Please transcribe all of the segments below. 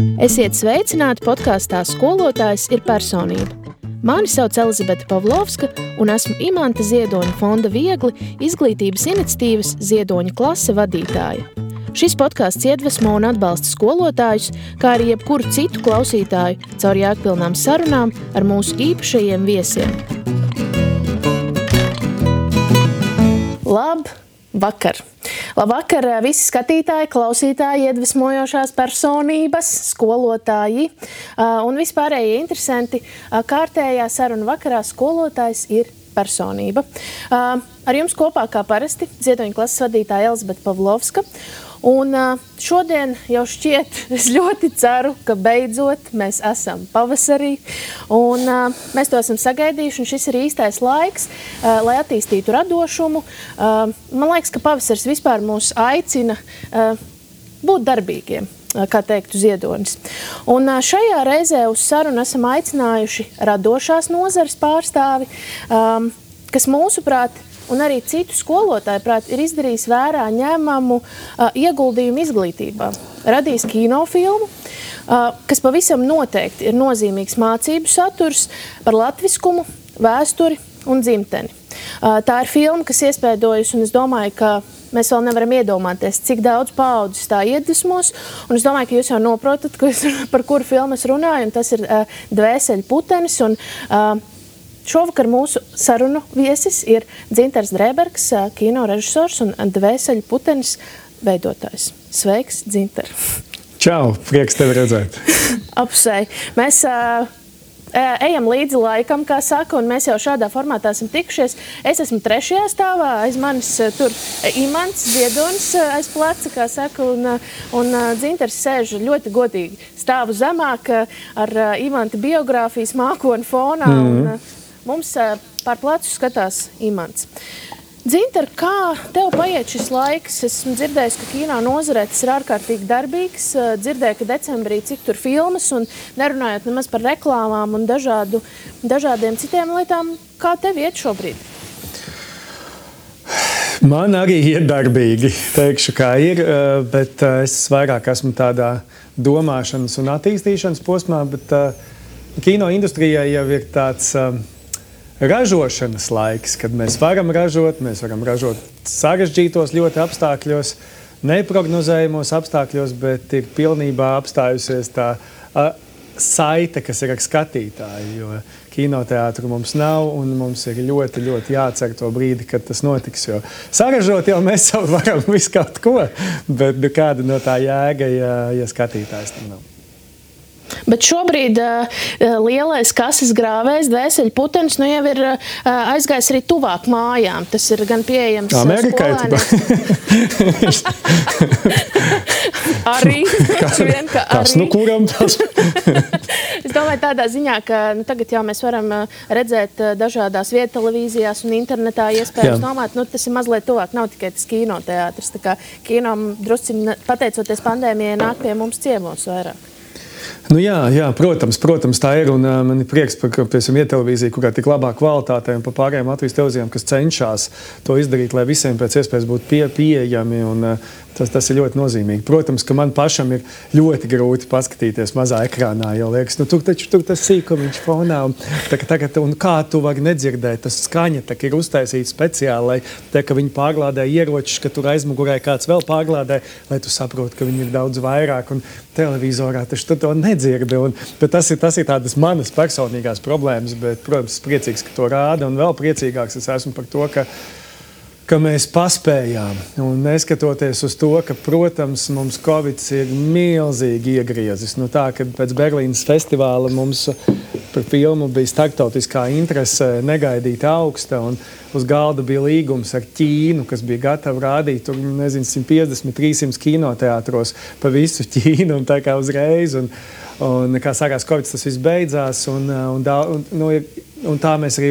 Esiet sveicināti podkāstā Skolotājs ir personība. Mani sauc Elizabete Pavlovska un esmu Imanta Ziedoņa fonda Viegli izglītības iniciatīvas Ziedoņa klase vadītāja. Šis podkāsts iedvesmo un atbalsta skolotājus, kā arī jebkuru citu klausītāju caur jēgpilnām sarunām ar mūsu īpašajiem viesiem. Labvakar! Labvakar visi skatītāji, klausītāji, iedvesmojošās personības, skolotāji un vispārējie interesanti. Kārtējā saruna vakarā Skolotājs ir personība. Ar jums kopā kā parasti Ziedoņa klases vadītāja Elizabete Pavlovska. Un šodien jau šķiet, es ļoti ceru, ka beidzot mēs esam pavasarī un mēs to esam sagaidījuši, un šis ir īstais laiks, lai attīstītu radošumu. Man liekas, ka pavasaris vispār mūs aicina būt darbīgiem, kā teiktu Ziedonis. Un šajā reizē uz sarunu esam aicinājuši radošās nozares pārstāvi, kas mūsuprāt un arī citu skolotāju prāt ir izdarījis vērā ņemamu ieguldījumu izglītībā. Radījis kinofilmu, kas pavisam noteikti ir nozīmīgs mācību saturs par latviskumu, vēsturi un dzimteni. Tā ir filma, kas iespēdojas, un es domāju, ka mēs vēl nevaram iedomāties, cik daudz paaudzes tā iedvesmos, un es domāju, ka jūs jau noprotat, par kuru filmu es runāju, un tas ir Dvēseļu putenis, un šovakar mūsu sarunu viesis ir Dzintars Drēbergs, kino režisors un Dvēseļu putenis veidotājs. Sveiks, Dzintar! Čau, prieks tevi redzēt! Apsvei! Mēs ejam līdzi laikam, kā saka, un mēs jau šādā formātā esam tikušies. Es esmu 3. stāvā, aiz manis tur Imants Ziedonis aiz pleca, kā saka, un Dzintars sēž ļoti godīgi stāvu zemāk ar Imanta biogrāfijas mākoni fonā, un mums pār plecu skatās Imants. Dzintar, kā tev paiet šis laiks? Esmu dzirdējis, ka kino nozarē tas ir ārkārtīgi darbīgs. Dzirdēju, ka decembrī cik tur filmas un nerunājot nemaz par reklāmām un dažādiem citiem lietām. Kā tev iet šobrīd? Man arī ir darbīgi, teikšu, kā ir, bet es vairāk esmu tādā domāšanas un attīstīšanas posmā, bet kino industrijai jau ir tāds ražošanas laiks, kad mēs varam ražot sarežģītos ļoti apstākļos, neprognozējumos apstākļos, bet ir pilnībā apstājusies tā saite, kas ir ar skatītāju, jo kinoteātru mums nav un mums ir ļoti, ļoti jācer to brīdi, kad tas notiks, jo saražot jau mēs jau varam visu kaut ko, bet kāda no tā jēga, ja skatītājs tam nav. Bet šobrīd lielais kases grāvējs, Dvēseļu putenis, nu jau ir aizgājis arī tuvāk mājām. Tas ir gan pieejams Amerikai, arī. Kas nu kuram tas? Es domāju tādā ziņā, ka tagad jau mēs varam redzēt dažādās viedtelevīzijās un internetā iespējams nomāt. Tas ir mazliet tuvāk, nav tikai tas kinoteātris. Tā kā kino drusciņi, pateicoties pandēmijai, nāk pie mums ciemos vairāk. Nu jā, protams, tā ir, un man ir prieks par viedtelevīziju, kurā tik labā kvalitātē un par pārējām Latvijas televīzijām, kas cenšas to izdarīt, lai visiem pēc iespējas būtu pieejami, un tas ir ļoti nozīmīgi. Protams, ka man pašam ir ļoti grūti paskatīties mazā ekrānā, jo liekas, tur tas sīkumiņš fonā, un kā tu vari nedzirdēt, tas skaņa ir uztaisīta speciāli, lai ka viņi pārlādē ieročus, ka tur aizmugurē kāds vēl pārlādē, lai tu saproti, ka viņi ir daudz vairāk, un televizorā taču tu to nedzirdi, bet tas ir tādas manas personīgās problēmas, bet, protams, priecīgs, ka to rāda, un vēl priecīgāks es esmu par to, ka mēs paspējām, un neskatoties uz to, ka, protams, mums Covid ir milzīgi iegriezis. Kad pēc Berlīnas festivāla mums par filmu bija starptautiskā interese negaidīti augsta, un uz galda bija līgums ar Ķīnu, kas bija gatava rādīt, 150-300 kinoteātros pa visu Ķīnu, un tā kā uzreiz, un kā sākās Covid, tas viss beidzās, un tā mēs arī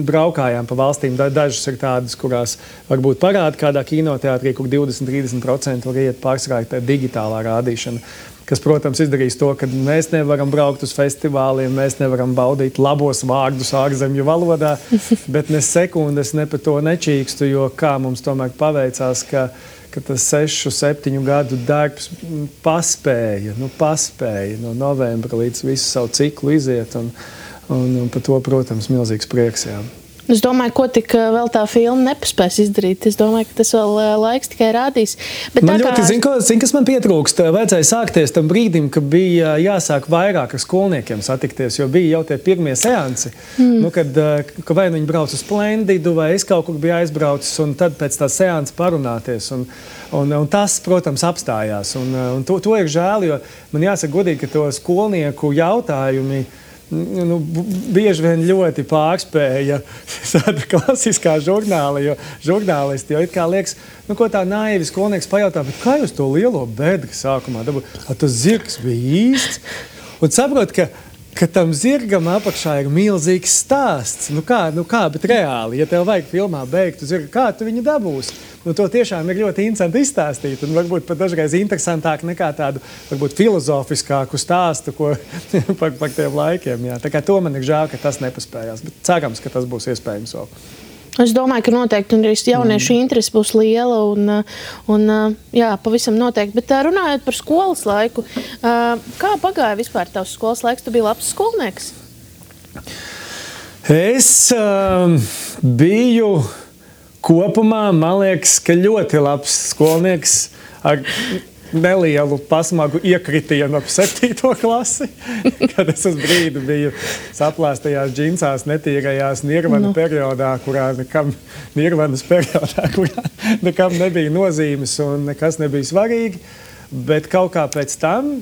braukājām pa valstīm. Dažas ir tādas, kurās varbūt parāda kādā kinoteātrī, kur 20-30% var iet pārsvarā tā digitālā rādīšana, kas, protams, izdarīs to, ka mēs nevaram braukt uz festivāliem, mēs nevaram baudīt labos vārdus ārzemju valodā, bet ne sekundes ne par to nečīkstu, jo kā mums tomēr paveicās, ka ka tas 6-7 gadu darbs paspēja no novembra līdz visu savu ciklu iziet. Un par to, protams, milzīgs prieks. Jā. Es domāju, ko tik vēl tā filma nepaspēs izdarīt. Es domāju, ka tas vēl laiks tikai rādīs. Bet man ļoti, zin, kas man pietrūkst, vajadzēja sākties tam brīdim, ka bija jāsāk vairāk ar skolniekiem satikties, jo bija jau tie pirmie seansi, kad vai viņi brauc uz Splendidu, vai es kaut kur biju aizbraucis, un tad pēc tā seansa parunāties. Un tas, protams, apstājās. Un to ir žēl, jo man jāsaka godīgi, ka to skolnieku jautājumi bieži vien ļoti pārspēja tāda klasiskā žurnāla, jo žurnālisti jau it kā liekas, ko tā naivi skolnieks pajautā, bet kā jūs to lielo bedri sākumā dabūjāt? Tas zirgs bija īsts. Un saprot, ka tam zirgam apakšā ir milzīgs stāsts. Kā, bet reāli, ja tev vajag filmā beigtu zirgu, kā tu viņu dabūsi? To tiešām ir ļoti interesanti izstāstīt, un varbūt pat dažreiz interesantāk nekā tādu, varbūt filozofiskāku stāstu par tiem laikiem. Jā. Tā kā to man ir žēl, ka tas nepaspējās, bet cerams, ka tas būs iespējams vēl. Es domāju, ka noteikti arī jauniešu interese būs liela un jā, pavisam noteikti. Bet runājot par skolas laiku, kā pagāja vispār tavs skolas laiks? Tu biji labs skolnieks? Es biju kopumā, man liekas, ka ļoti labs skolnieks ar nelielu pasmagu iekritienu ap 7. klasi, kad es uz brīdi biju saplāstajās džinsās, netīrajās Nirvana periodā, kurā nekam nebija nozīmes un nekas nebija svarīgi. Bet kaut kā pēc tam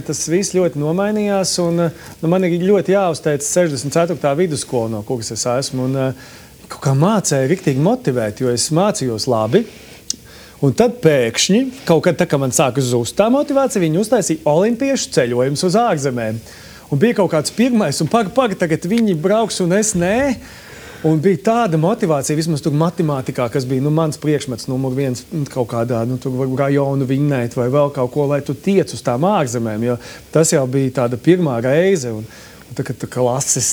tas viss ļoti nomainījās, un man ir ļoti jāuzteic 64. vidusskola, no kuras es esmu. Kaut kā mācēja riktīgi motivēt, jo es mācījos labi. Un tad pēkšņi, kaut kad tā, kad man sāka zust tā motivācija, viņi uztaisīja olimpiešu ceļojumus uz ārzemēm. Un bija kaut kāds pirmais, un tagad viņi brauks, un es nē. Un bija tāda motivācija, vismaz tur matemātikā, kas bija mans priekšmets numur 1 kaut kādā, tur rajonu vinnēt vai vēl kaut ko, lai tu tiec uz tām ārzemēm, jo tas jau bija tāda pirmā reize. Un kad klases,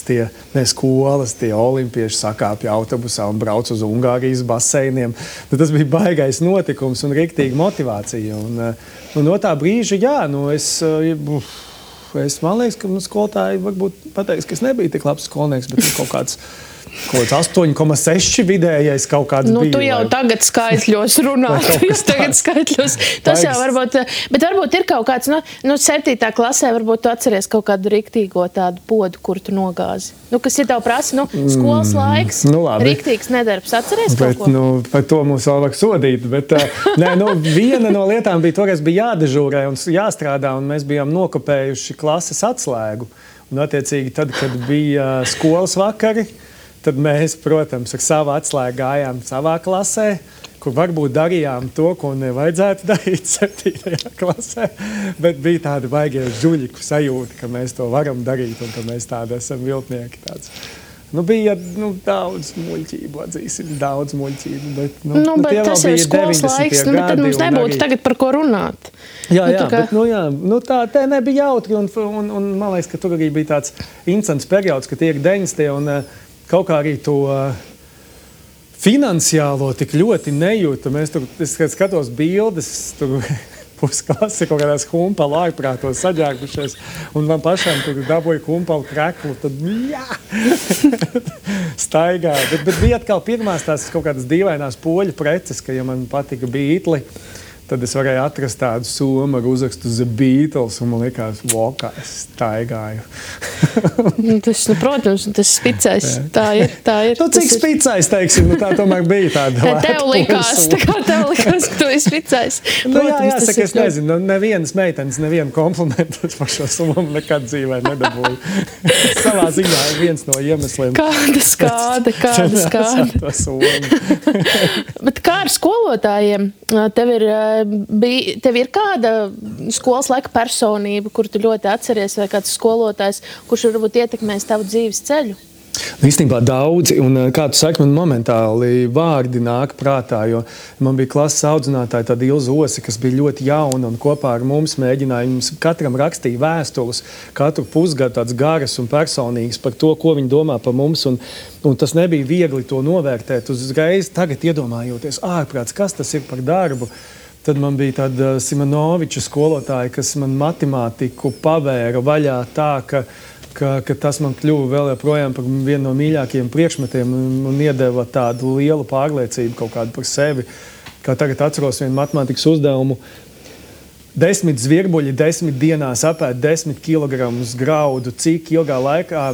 skolas, tie olimpieši sakāpja autobusā un brauc uz Ungārijas baseiniem. Tas bija baigais notikums un riktīgi motivācija. Un no tā brīža, jā, man liekas, ka skolotāji varbūt pateiks, ka es nebiju tik labs skolnieks, bet kaut kāds 8,6 vidējais kaut kāds bija. Tu jau tagad skaitļos runā. Tas jau varbūt, bet varbūt ir kaut kāds, 7. klasē varbūt tu atceries kaut kādu riktīgo tādu podu, kur tu nogāzi. Kas ir tev prasa, skolas laiks, riktīgs nedarbs. Atceries kaut ko? Par to mums vēl vajag sodīt, bet viena no lietām bija toreiz bija jādežūrē un jāstrādā, un mēs bijām nokopējuši klases atslēgu. Un attiecīgi tad, kad bija skolas vakari, tad mēs, protams, ar savu atslēgu gājām savā klasē, kur varbūt darījām to, ko nevajadzētu darīt 7. klasē, bet bija tāda baigie žuļiku sajūta, ka mēs to varam darīt un ka mēs tādi esam viltnieki. Bija daudz muļķību, atzīsim, daudz muļķību, bet bet tas ir skolas laiks, bet mums nebūtu tagad par ko runāt. Jā, bet tā nebija jautri, un man liekas, ka tur arī bija tāds interesants periods, ka tie ir 90. un kaut kā arī to finansiālo tik ļoti nejūta. Es skatos bildes, tur pusklasi kaut kādās humpalu ārprātos saģērbušies, un man pašām tur dabūja humpalu kreklu, tad staigā. Bet bija atkal pirmās tās kaut kādas dīvainās poļu preces, ka, ja man patika Beatli, tad es varēju atrast tādu somu ar uzrakstu The Beatles, un man likās, kā es staigāju. Protams, tas spicais. Tā ir. Cik spicais, teiksim, tā tomēr bija tāda. Tev likās, ka tu esi spicais. Jāsaka, es nezinu, nevienas meitenes, nevienu komplimentu par šo somu nekad dzīvē nedabūju. Savā ziņā ir viens no iemesliem. Kāda skāde. Bet kā ar skolotājiem? Tev ir kāda skolas laika personība, kuru tu ļoti atceries, vai kāds skolotājs, kurš varbūt ietekmēs tavu dzīves ceļu? Īstenībā daudzi, un kā tu saki, man momentāli vārdi nāk prātā, jo man bija klases audzinātāja tāda Ilza Osi, kas bija ļoti jauna un kopā ar mums mēģināja, mums katram rakstīja vēstules, katru pusgadu tāds garas un personīgas par to, ko viņi domā par mums, un tas nebija viegli to novērtēt uzreiz, tagad iedomājoties ārprāts, kas tas ir par darbu. Tad man bija tāda Simonoviča skolotāja, kas man matemātiku pavēra vaļā tā, ka tas man kļuva vēl joprojām par vienu no mīļākajiem priekšmetiem un iedeva tādu lielu pārliecību kaut kādu par sevi. Kā tagad atceros vienu matemātikas uzdevumu. 10 zvirbuļi 10 dienās apēd 10 kilogramus graudu. Cik ilgā laikā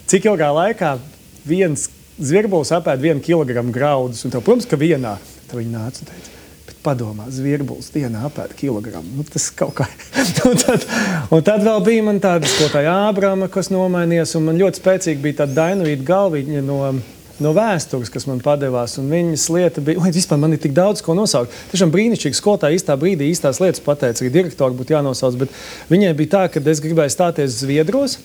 cik ilgā laikā viens zvirbulis apēd 1 kilogramu graudus? Un tev, protams, ka vienā. Tad viņi nāca un teica, bet padomā, zvirbulis dienā apēd kilogramu. Tas kaut kā. un tad vēl bija man tāda skolotāja Ābrama, kas nomainījās, un man ļoti spēcīgi bija tāda Dainavīta Galviņa no vēstures, kas man padevās, un viņas lieta bija, vispār man ir tik daudz, ko nosaukt. Tiešām brīnišķīgi skolotāja īstā brīdī īstās lietas pateica, arī direktori būtu jānosauc, bet viņai bija tā, ka es gribēju stāties Zviedros.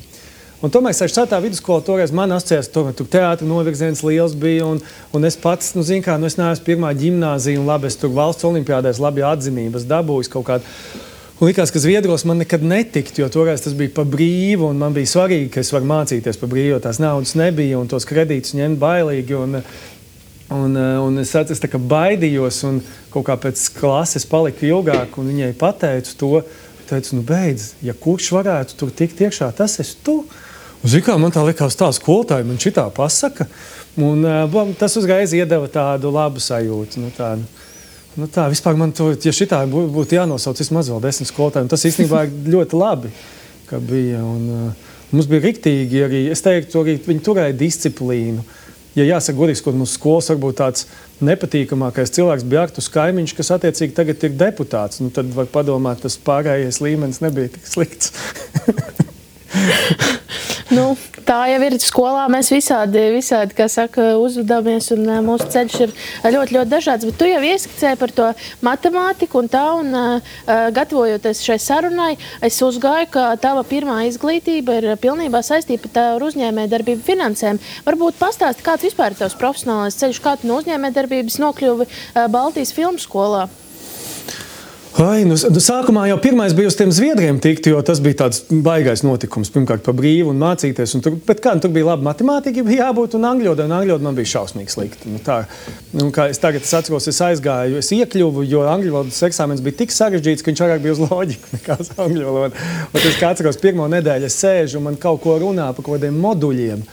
Un tomēr 6. vidusskola toreiz man asociējās, tomēr tur teātra novirziens liels bija, un es pats, es neesmu pirmā ģimnāzija, un labi, es tur valsts olimpiādēs labi atzinības dabūjis kaut kādu. Un likās, ka Zviedros man nekad netikt, jo toreiz tas bija pa brīvu, un man bija svarīgi, ka es varu mācīties pa brīvu, jo tās naudas nebija, un tos kredītus ņemt bailīgi, un es tā kā baidījos, un kaut kā pēc klases paliku ilgāk, un viņai pateicu to, teicu, beidz, ja kurš varētu tur tikt iekšā, tas esi tu. Zikā, man tā likās tā skolotāja, man šitā pasaka, un tas uzreiz iedeva tādu labu sajūtu. Tā, vispār man to, ja šitā būtu jānosauc vismaz vēl 10 skolotāji, un tas īstenībā ļoti labi, ka bija, un mums bija riktīgi arī, es teiktu, arī viņi turēja disciplīnu. Ja jāsaka godīgs, ka mūsu skolas varbūt tāds nepatīkamākais cilvēks bija Artus Kaimiņš, kas attiecīgi tagad ir deputāts, tad var padomāt, tas pārējais līmenis nebija tik slikts. Tā jau ir skolā, mēs visādi, kā saka, uzvedamies, un mūsu ceļš ir ļoti, ļoti dažāds, bet tu jau ieskicēji par to matemātiku un gatavojoties šai sarunai, es uzgāju, ka tava pirmā izglītība ir pilnībā saistīta ar uzņēmējdarbību finansēm. Varbūt pastāsti, kāds vispār ir tavs profesionālais ceļš, kā tu no uzņēmējdarbības nokļuvi Baltijas filmu skolā? Sākumā jau pirmais bija uz tiem Zviedriem tikt, jo tas bija tāds baigais notikums, pirmkārt par brīvu un mācīties. Bet tur bija laba matemātika, bija jābūt, un angļu valoda man bija šausmīgi slikta. Kā es tagad atceros, es aizgāju, es iekļuvu, jo angļu valodas eksāmens bija tik sarežģīts, ka viņš vairāk bija uz loģiku nekā uz angļu valodu. Un es kā atceros, pirmo nedēļu es sēžu un man kaut ko runā par kaut kādiem moduļiem.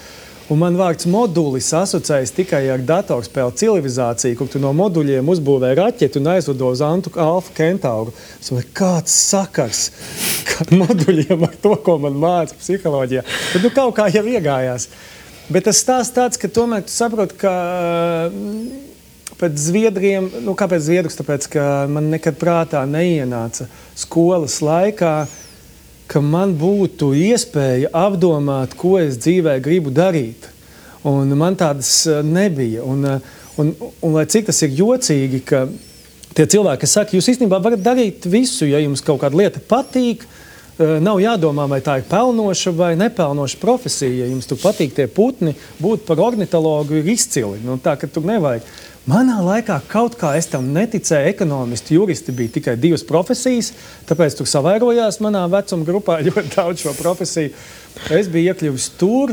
Un man vārds modulis asociējas tikai ar datorspēli civilizāciju, kur tu no moduļiem uzbūvē raķeti un aizlido uz Alfa Kentauru. Es domāju, kāds sakars moduļiem ar to, ko man māca psiholoģijā. Bet kaut kā jau iegājās. Bet tas stāsts tāds, ka tomēr tu saproti, ka pēc Zviedriem, kāpēc Zviedrus? Tāpēc, ka man nekad prātā neienāca skolas laikā, ka man būtu iespēja apdomāt, ko es dzīvē gribu darīt. Un man tādas nebija. Un lai cik tas ir jocīgi, ka tie cilvēki, kas saka, jūs īstenībā varat darīt visu, ja jums kaut kāda lieta patīk, nav jādomā, vai tā ir pelnoša vai nepelnoša profesija. Ja jums tur patīk tie putni, būt par ornitologu ir izcili. Tā, ka tur nevajag. Manā laikā kaut kā es tam neticēju, ekonomisti, juristi bija tikai 2 profesijas, tāpēc tur savērojās manā vecuma grupā ļoti daudz šo profesiju. Es biju iekļuvis tur,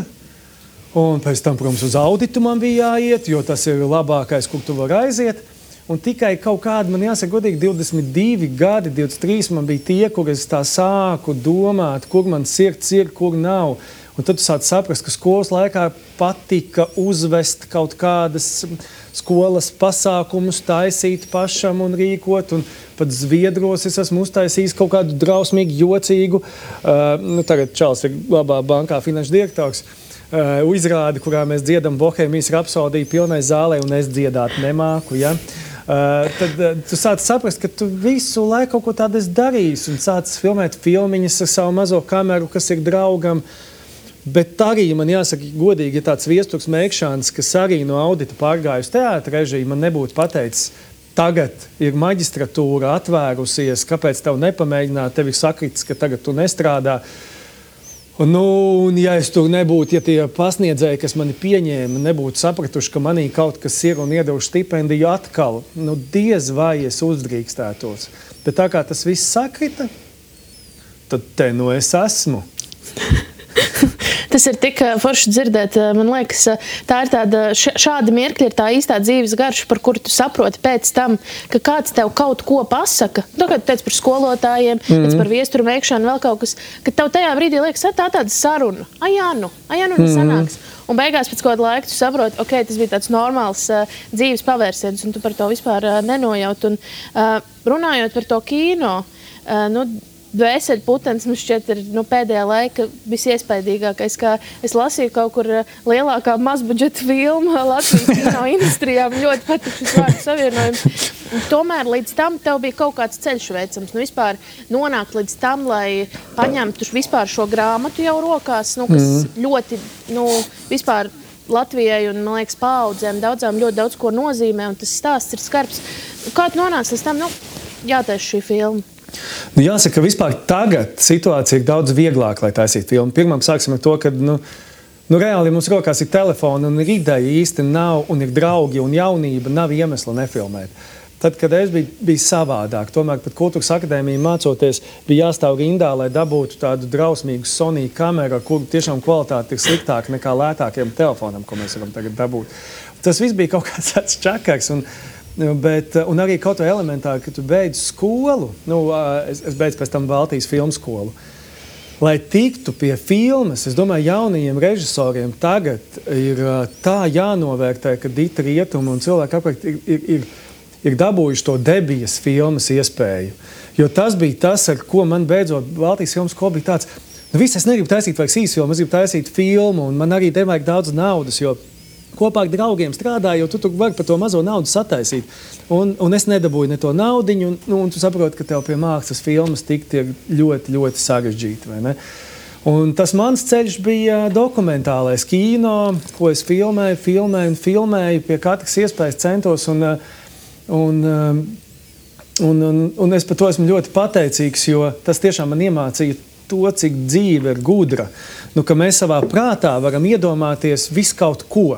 un pēc tam, protams, uz auditu man bija jāiet, jo tas ir labākais, kur tu vari aiziet. Un tikai kaut kādi, man jāsaka godīgi, 22 gadi, 23 man bija tie, kur es tā sāku domāt, kur man sirds ir, kur nav. Un tad tu sāc saprast, ka skolas laikā patika uzvest kaut kādas skolas pasākumus, taisīt pašam un rīkot. Un pat Zviedros es esmu uztaisījis kaut kādu drausmīgi jocīgu. Tagad Čāls ir labā bankā finanšu direktors. Izrādi, kurā mēs dziedam Bohēmijas rapsodiju pilnai zālē, un es dziedāt nemāku. Ja? Tad tu sāc saprast, ka tu visu laiku kaut ko tādu esi darījis un sāc filmēt filmiņas ar savu mazo kameru, kas ir draugam. Bet arī man jāsaka godīgi, ja tāds Viesturs Meikšāns, kas arī no audita pārgājusi teātra režiju, man nebūtu pateicis, tagad ir maģistratūra atvērusies, kāpēc tev nepamēģināt, tev ir sakritis, ka tagad tu nestrādā. Un ja es tur nebūtu, ja tie pasniedzēji, kas mani pieņēma, nebūtu sapratuši, ka manī kaut kas ir un iedevuši stipendiju atkal, diez vai es uzdrīkstētos. Bet tā kā tas viss sakrita, tad te es esmu. Tas ir tik forši dzirdēt. Man liekas, tā ir tāda, šādi mirkļi ir tā īstā dzīves garša, par kuru tu saproti pēc tam, ka kāds tev kaut ko pasaka. Tu teici par skolotājiem, teici par viesturu veikšanu, vēl kaut kas, ka tev tajā brīdī liekas, tā tāda saruna. Sanāks. Un beigās pēc kāda laika tu saproti, ok, tas bija tāds normāls dzīves pavērsiens, un tu par to vispār nenojaut. Un runājot par to kino, Dvēseļputenis mums šķiet ir pēdējā laika visiespaidīgākais, kā es lasīju kaut kur lielākā mazbudžeta filma Latvijas kino industrijā. Man ļoti patīk šis vārdu savienojums. Tomēr līdz tam tev bija kaut kāds ceļš veicams. Vispār nonākt līdz tam, lai paņemtu vispār šo grāmatu jau rokās, kas ļoti, vispār Latvijai un, man liekas, paaudzēm daudzām ļoti daudz ko nozīmē, un tas stāsts ir skarbs. Kā tu nonāc līdz tam, jātaisa šī filma? Jāsaka, ka vispār tagad situācija ir daudz vieglāk, lai taisītu filmu. Pirmām sāksim ar to, ka reāli mums rokās ir telefoni un ir ideja īsti nav, un ir draugi un jaunība, nav iemesla nefilmēt. Tad, kad es biju savādāk, tomēr pat Kultūras akadēmija mācoties, bija jāstāv rindā, lai dabūtu tādu drausmīgu Sony kameru, kur tiešām kvalitāte ir sliktāka nekā lētākiem telefonam, ko mēs varam tagad dabūt. Tas viss bija kaut kāds tāds čakars. Un arī kaut vai elementāri, ka tu beidz skolu, es beidzu pēc tam Baltijas filmu skolu, lai tiktu pie filmas, es domāju, jaunajiem režisoriem tagad ir tā jānovērtē, ka Dita Rietuma un cilvēki apkārt ir dabūjuši to debijas filmas iespēju. Jo tas bija tas, ar ko man beidzot Baltijas filmu skolu bija tāds, viss es negribu taisīt vairs īsu filmu, es gribu taisīt filmu, un man arī nevajag daudz naudas, jo kopā ar draugiem strādāju, jo tu vari par to mazo naudu sataisīt. Un es nedabūju ne to naudiņu, un tu saproti, ka tev pie mākslas filmas tikt ir ļoti, ļoti sarežģīti, vai ne? Un tas mans ceļš bija dokumentālais kino, ko es filmēju, pie katras iespējas centos, un es par to esmu ļoti pateicīgs, jo tas tiešām man iemācīja to, cik dzīve ir gudra. Ka mēs savā prātā varam iedomāties visu kaut ko.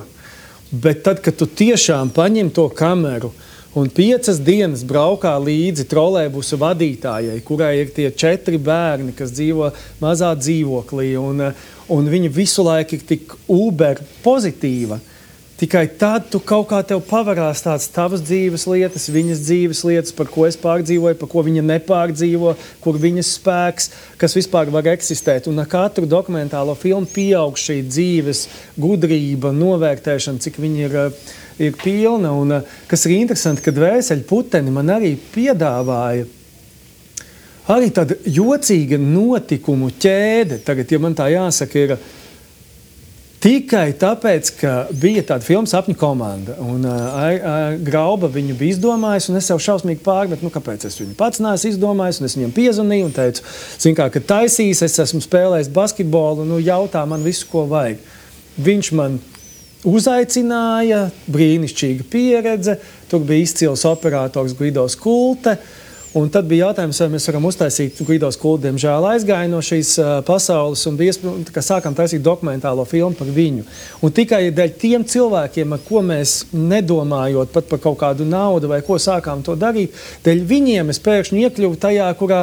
Bet tad, kad tu tiešām paņem to kameru un 5 dienas braukā līdzi trolejbusu vadītājai, kurai ir tie 4 bērni, kas dzīvo mazā dzīvoklī, un viņa visu laiku ir tik uber pozitīva, tikai tad tu kaut kā tev pavarās tāds tavas dzīves lietas, viņas dzīves lietas, par ko es pārdzīvoju, par ko viņa nepārdzīvo, kur viņas spēks, kas vispār var eksistēt. Un ar katru dokumentālo filmu pieaug šī dzīves gudrība, novērtēšana, cik viņa ir pilna. Un kas ir interesanti, ka Dvēseļputeni man arī piedāvāja arī tāda jocīga notikumu ķēde. Tagad, ja man tā jāsaka, ir tikai tāpēc, ka bija tāda filma Sapņu komanda, un Grauba viņu bija izdomājis, un es sev šausmīgi pārmetu, kāpēc es viņu pats neesmu izdomājis, un es viņam piezvanīju un teicu, kad taisīs, es esmu spēlējis basketbolu, jautā man visu, ko vajag. Viņš man uzaicināja, brīnišķīga pieredze, tur bija izcils operators Guido Skulte, un tad bija jautājums, vai mēs varam uztaisīt, Guido Skulte, diemžēl aizgāja no šīs pasaules, un sākām taisīt dokumentālo filmu par viņu. Un tikai dēļ tiem cilvēkiem, ar ko mēs nedomājot pat par kaut kādu naudu vai ko sākām to darīt, dēļ viņiem es pēkšņi iekļuvu tajā, kurā,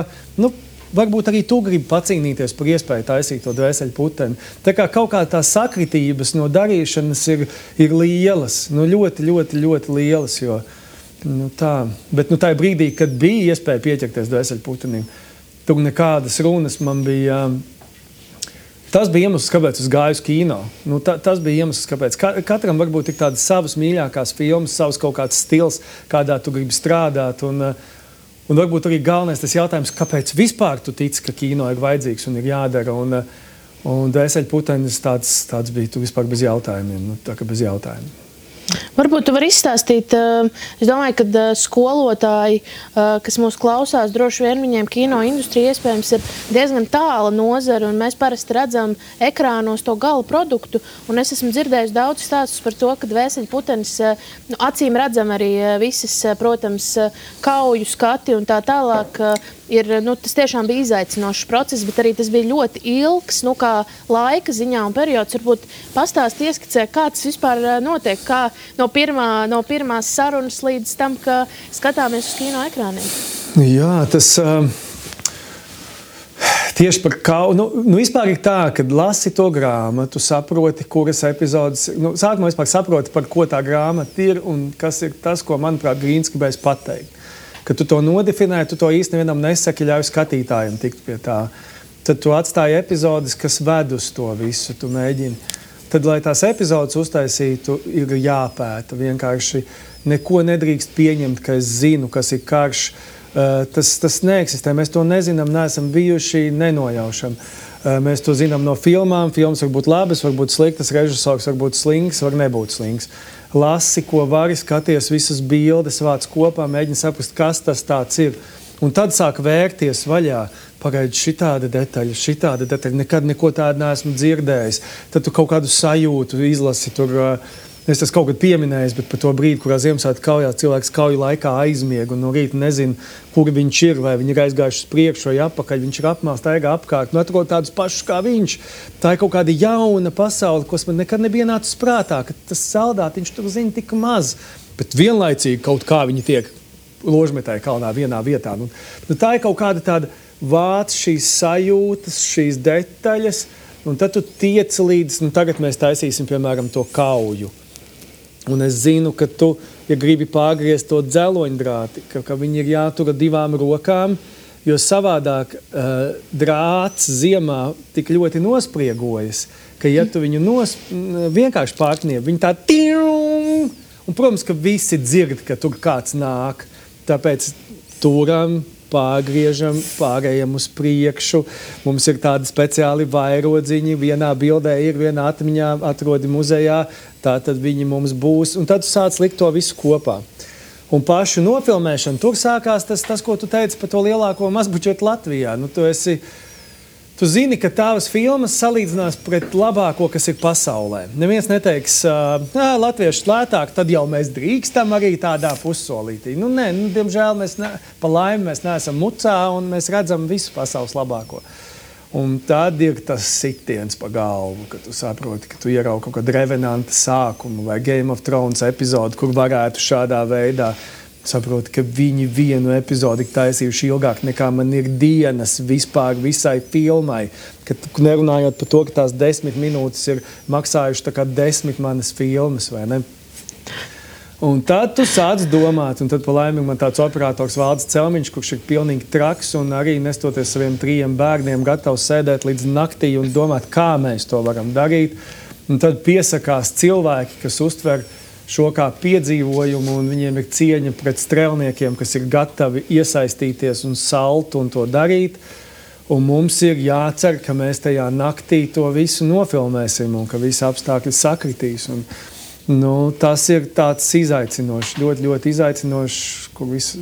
varbūt arī tu gribi pacīnīties par iespēju taisīt to Dvēseļputeni. Tā kā kaut kā tās sakritības no darīšanas ir lielas, ļoti, ļoti, ļoti lielas, jo bet tā brīdī, kad bija iespēja pieķerties Dvēseļputenim, tur nekādas runas man bija. Tas bija iemesls, kāpēc es gāju uz kino. Tas bija iemesls, kāpēc. Katram varbūt ir tādas savas mīļākās filmas, savs kaut kāds stils, kādā tu gribi strādāt. Un varbūt arī galvenais tas jautājums, kāpēc vispār tu tici, ka kino ir vajadzīgs un ir jādara. Un Dvēseļputenis tāds bija tu vispār bez jautājumiem. Tā kā bez jautājumiem. Varbūt tu vari izstāstīt, es domāju, ka skolotāji, kas mūs klausās, droši vien viņiem kino industrija iespējams ir diezgan tāla nozara, un mēs parasti redzam ekrānos to gala produktu, un es esmu dzirdējis daudz stāstus par to, ka Dvēseļputenis acīm redzam arī visas, protams, kauju skati un tā tālāk, tas tiešām bija izaicinošs process, bet arī tas bija ļoti ilgs, kā laika ziņā un periods. Varbūt pastāst ieskicē, kā tas vispār notiek, kā no pirmās sarunas līdz tam, ka skatāmies uz kino ekrāniem. Jā, tas tieši par vispār ir tā, kad lasi to grāmatu, saproti, kuras epizodes, sākumā vispār saproti, par ko tā grāmata ir un kas ir tas, ko, manuprāt, Grīns gribēs pateikt. Kad tu to nodefinē, tu to īsti nevienam nesaki, ļauj skatītājiem tikt pie tā. Tad tu atstāji epizodes, kas ved uz to visu, tu mēģini. Tad, lai tās epizodes uztaisītu, ir jāpēta. Vienkārši neko nedrīkst pieņemt, ka es zinu, kas ir karš. Tas neeksistē. Mēs to nezinām, neesam bijuši, nenojaušam. Mēs to zinām no filmām. Filmas var būt labas, var būt sliktas, režisors var būt slings, var nebūt slings. Lasi, ko vari, skaties visas bildes, vāc kopā, mēģini saprast, kas tas tāds ir. Un tad sāk vērties vaļā, pagaidi šitāda detaļa, nekad neko tādu neesmu dzirdējis. Tad tu kaut kādu sajūtu izlasi tur. Es tas kaut kad pieminējis, bet par to brīdi, kurā Ziemassvētku kaujā cilvēks kauju laikā aizmieg un no rīta nezina, kur viņš ir, vai viņi ir aizgājuši uz priekšu vai apakaļ, viņš ir apmāls, staigā apkārt, atrod tādus pašus kā viņš. Tā ir kaut kāda jauna pasaule, kas man nekad nebija nācis prātā, ka tas saldātiņš tur zina tik maz, bet vienlaicīgi kaut kā viņi tiek ložmetāji kalnā vienā vietā. Tā ir kaut kāda tāda vāc šīs sajūtas, šīs detaļas, un tad tu tiec līdz, tagad mēs taisīsim, piemēram, to kauju. Un es zinu, ka tu, ja gribi pārgriezt to dzeloņdrāti, ka viņi ir jātura 2 rokām, jo savādāk drāts ziemā tik ļoti nospriegojas, ka ja tu viņu vienkārši pārkniep, viņi tā tīrum, un, protams, ka visi dzird, ka tur kāds nāk, tāpēc turam, pārgriežam, pārējam uz priekšu. Mums ir tādi speciāli vairodziņi, vienā bildē ir, vienā atmiņā atrodi muzejā, tātad viņi mums būs. Un tad tu sāc likt to visu kopā. Un pašu nofilmēšanu, tur sākās tas, ko tu teici par to lielāko mazbučetu Latvijā. Tu zini, ka tavas filmas salīdzinās pret labāko, kas ir pasaulē. Neviens neteiks, latvieši lētāk, tad jau mēs drīkstam arī tādā pussolītī. Nē, diemžēl pa laimi mēs neesam mucā un mēs redzam visu pasaules labāko. Un tad ir tas sitiens pa galvu, ka tu saproti, ka tu ieraugi kaut kādu Revenanta sākumu vai Game of Thrones epizodu, kur varētu šādā veidā saproti, ka viņi vienu epizodi taisījuši ilgāk nekā man ir dienas vispār visai filmai. Nerunājot par to, ka tās 10 minūtes ir maksājuši tā kā 10 manas filmas, vai ne? Un tad tu sāc domāt, un tad pa laimīgi man tāds operators Valdis Celmiņš, kurš ir pilnīgi traks un arī nestoties saviem 3 bērniem gatavs sēdēt līdz naktī un domāt, kā mēs to varam darīt. Un tad piesakās cilvēki, kas uztver šo kā piedzīvojumu, un viņiem ir cieņa pret strēlniekiem, kas ir gatavi iesaistīties un salt un to darīt. Un mums ir jācer, ka mēs tajā naktī to visu nofilmēsim un ka visi apstākļi sakritīs. Un, tas ir tāds izaicinošs, ļoti, ļoti izaicinošs, kur viss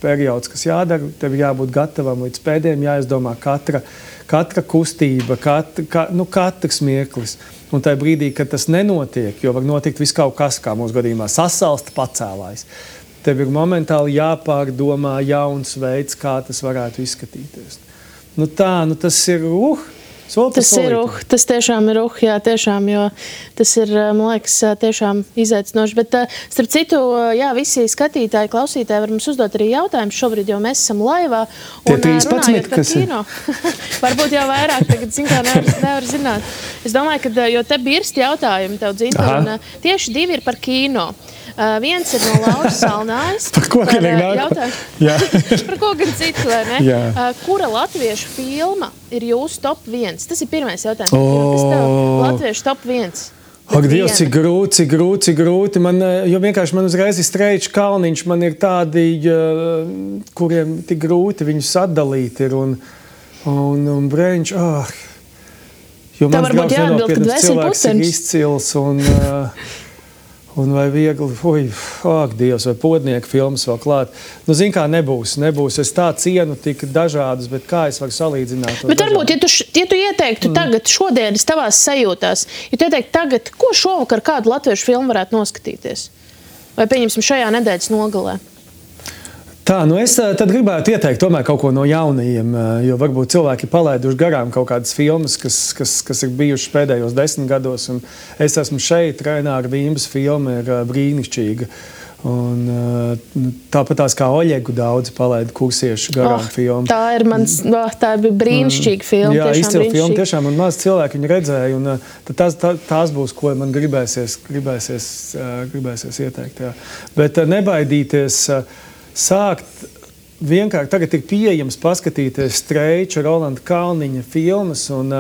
periods, kas jādara, tev jābūt gatavam līdz pēdējiem, jāizdomā katra kustība, katrs mieklis. Un tajā brīdī, kad tas nenotiek, jo var notikt viss kaut kas, kā mūsu gadījumā, sasalst pacēlājs. Tev ir momentāli jāpārdomā jauns veids, kā tas varētu izskatīties. Tas ir Tas tiešām ir jā, tiešām, jo tas ir, man liekas, tiešām izaicinoši. Bet, starp citu, jā, visi skatītāji, klausītāji var mums uzdot arī jautājumus šobrīd, jo mēs esam laivā. Un runājot par kino, varbūt jau vairāk, tagad nevar zināt. Es domāju, ka, jo te birst jautājumi tev, Dzinta, un tieši 2 ir par kino. Viens ir no Lauras Salnājas. Par ko gan ir nāk? Par ko gan citu, vai ne? Kura latviešu filma ir jūsu top 1? Tas ir pirmais jautājums. Kas tev latviešu top 1? Ak, Dievs, cik grūti. Jo vienkārši man uzreiz ir Streičs Kalniņš. Man ir tādi, kuriem tik grūti viņus atdalīt ir. Un Breņš, jo mans draugs nenopietnas cilvēks ir izcils un vai viegli, Dievs, vai Podnieka filmas vēl klāt. Zin kā, nebūs. Es tā cienu tik dažādas, bet kā es varu salīdzināt? Bet varbūt, ja tu ieteiktu tagad, šodienas tavās sajūtās, ja tu ieteiktu tagad, ko šovakar kādu latviešu filmu varētu noskatīties? Vai pieņemsim šajā nedēļas nogalē? Tā, es tad gribētu ieteikt tomēr kaut ko no jaunajiem, jo varbūt cilvēki palaiduši garām kaut kādas filmas, kas ir bijušas pēdējos 10 gados, un es esmu šeit, Raināra Vīmbas filma ir brīnišķīga. Un, tāpat tās kā Oļegu daudzi palaida kursiešu garām filmu. Tā bija brīnišķīga filma. Jā, izcila filma tiešām, un maz cilvēki viņu redzēja, un tās būs, ko man gribēsies ieteikt. Jā. Bet nebaidīties sākt vienkārši, tagad ir pieejams paskatīties Streiča, Rolanda Kalniņa filmas, un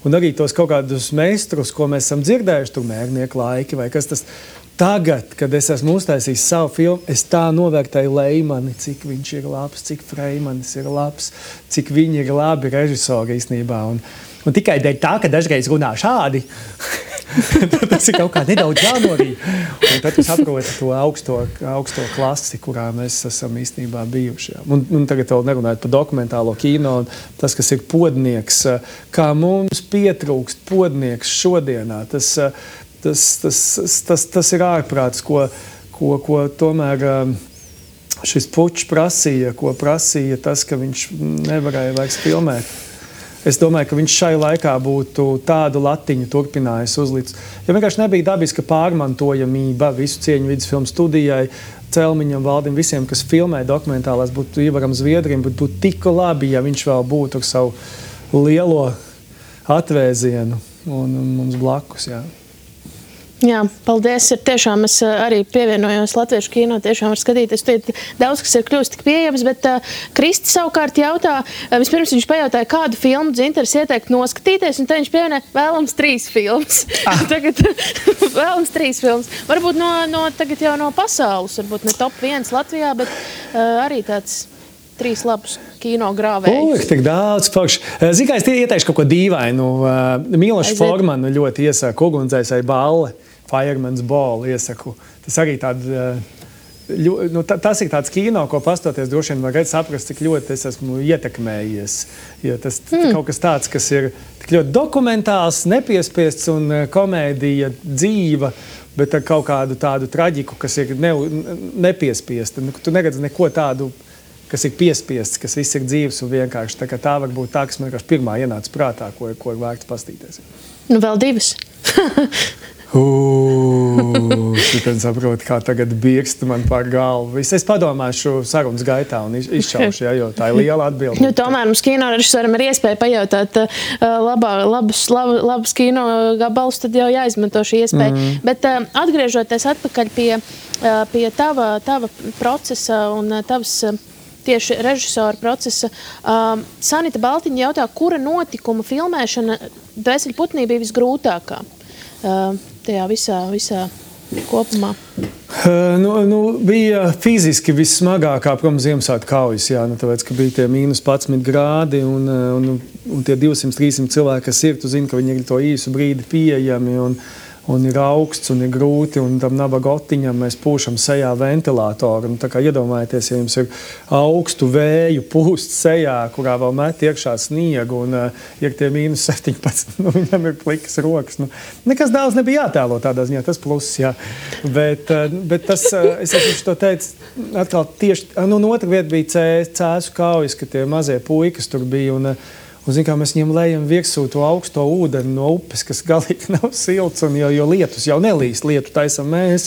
arī tos kaut kādus meistrus, ko mēs esam dzirdējuši, tur Mērnieku laiki vai kas tas. Tagad, kad es esmu uztaisījis savu filmu, es tā novērtēju Leimani, cik viņš ir labs, cik Freimanis ir labs, cik viņi ir labi režisori īstenībā. Un tikai dēļ tā, ka dažreiz runā šādi, tas ir kaut kā nedaudz jānorīd. Un tad tu saproti to augsto klasi, kurā mēs esam īstenībā bijuši. Un tagad vēl nerunājot par dokumentālo kino, tas, kas ir podnieks, kā mums pietrūkst podnieks šodienā, tas ir ārprāts, ko tomēr šis pučs prasīja, ko prasīja tas, ka viņš nevarēja vairs filmēt. Es domāju, ka viņš šai laikā būtu tādu latiņu turpinājis uzlicis. Jo vienkārši nebija dabiska pārmantojamība visu cieņu vidusfilmu studijai, Celmiņam, Valdim, visiem, kas filmē dokumentālās, būtu Ivaram Zviedrim, būtu tik labi, ja viņš vēl būtu ar savu lielo atvēzienu un mums blakus, jā. Jā, paldies. Tiešām es arī pievienojos latviešu kino, tiešām var skatīties. Daudz, kas ir kļūst tik pieejams, bet Kristi savukārt jautā, vispirms viņš pajautāja, kādu filmu Dzintars ieteikt noskatīties, un te viņš pievienoja vēlams 3 filmas. Tagad vēlams 3 filmas. Varbūt tagad jau no pasaules, varbūt ne top 1 Latvijā, bet arī tāds 3 labus kino grāvējus. Tik daudz pakš. Zini, kā es ieteikšu kaut ko dīvainu. Milošu Formanu ļoti iesaku, Ugunsdzēsēji balle. Fireman's Ball iesaku. Tas arī tas ir tāds kino, ko pastoties droši vien var saprast, cik ļoti es esmu ietekmējies. Jo tas kaut kas tāds, kas ir tik ļoti dokumentāls, nepiespiests un komēdija dzīva, bet ar kaut kādu tādu traģiku, kas ir nepiespiesta. Tu neredzi neko tādu, kas ir piespiests, kas viss ir dzīves un vienkārši. Tā var būt tā, kas man vienkārši pirmā ienāca prātā, ko ir vērts pastīties. Vēl 2. Tad saprotu, kā tagad biekst man par galvu. Es padomāšu sarunas gaitā un izšaušu, jo tā ir liela atbilde. Tomēr mums kino režisoram ir iespēja pajautāt labus kino gabalus, tad jau jāizmanto šī iespēja. Bet atgriežoties atpakaļ pie tava procesa un tavas tieši režisora procesa, Sanita Baltiņa jautā, kura notikuma filmēšana Dvēseļputnī bija visgrūtākā? Tajā visā kopumā? Bija fiziski vissmagākā, protams, Ziemassvētku kaujas, tāpēc, ka bija tie -11 grādi un tie 200-300 cilvēki, kas ir, tu zini, ka viņi ir to īsu brīdi pieejami un ir augsts un ir grūti, un tam nabagotiņam mēs pūšam sejā ventilātoru. Tā kā iedomājieties, ja jums ir augstu vēju pūst sejā, kurā vēl met iekšā sniegu, un ir tie -17, viņam ir plikas rokas. Nekas daudz nebija jātēlo tādā ziņā, tas pluss, jā. Bet tas, es to teicu, atkal tieši, otra vieta bija Cēsu kaujas, ka tie mazie puikas tur bija, un zin, kā mēs viņiem lejam virsū to augsto ūdeni no upes, kas galīgi nav silts, un jo lietus jau nelīst, lietu taisam mēs.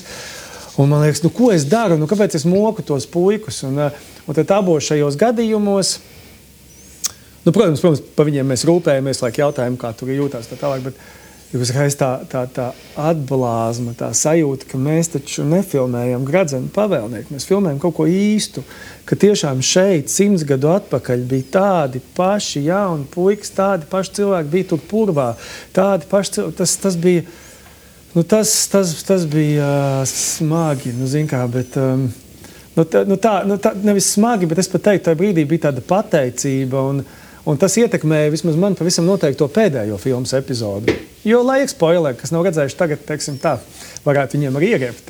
Un man liekas, ko es daru, kāpēc es moku tos puikus? Un tad abos šajos gadījumos, protams, par viņiem mēs rūpējamies, laik jautājam, kā tur jūtās tā tālāk, bet uzreiz tā atblāzma, tā sajūta, ka mēs taču nefilmējam Gradzenu pavēlnieku, mēs filmējam kaut ko īstu, ka tiešām šeit 100 gadu atpakaļ bija tādi paši jauni puikas, tādi paši cilvēki bija tur purvā, tādi paši cilvēki, tas bija, tas bija smagi, zin kā, bet, tā nevis smagi, bet es pat teiktu, tajā brīdī bija tāda pateicība, un tas ietekmēja vismaz man pavisam noteikti to pēdējo filmas epizodu. Jo, lai spoileri, kas nav redzējuši tagad, teiksim tā, varētu viņiem arī ieriept.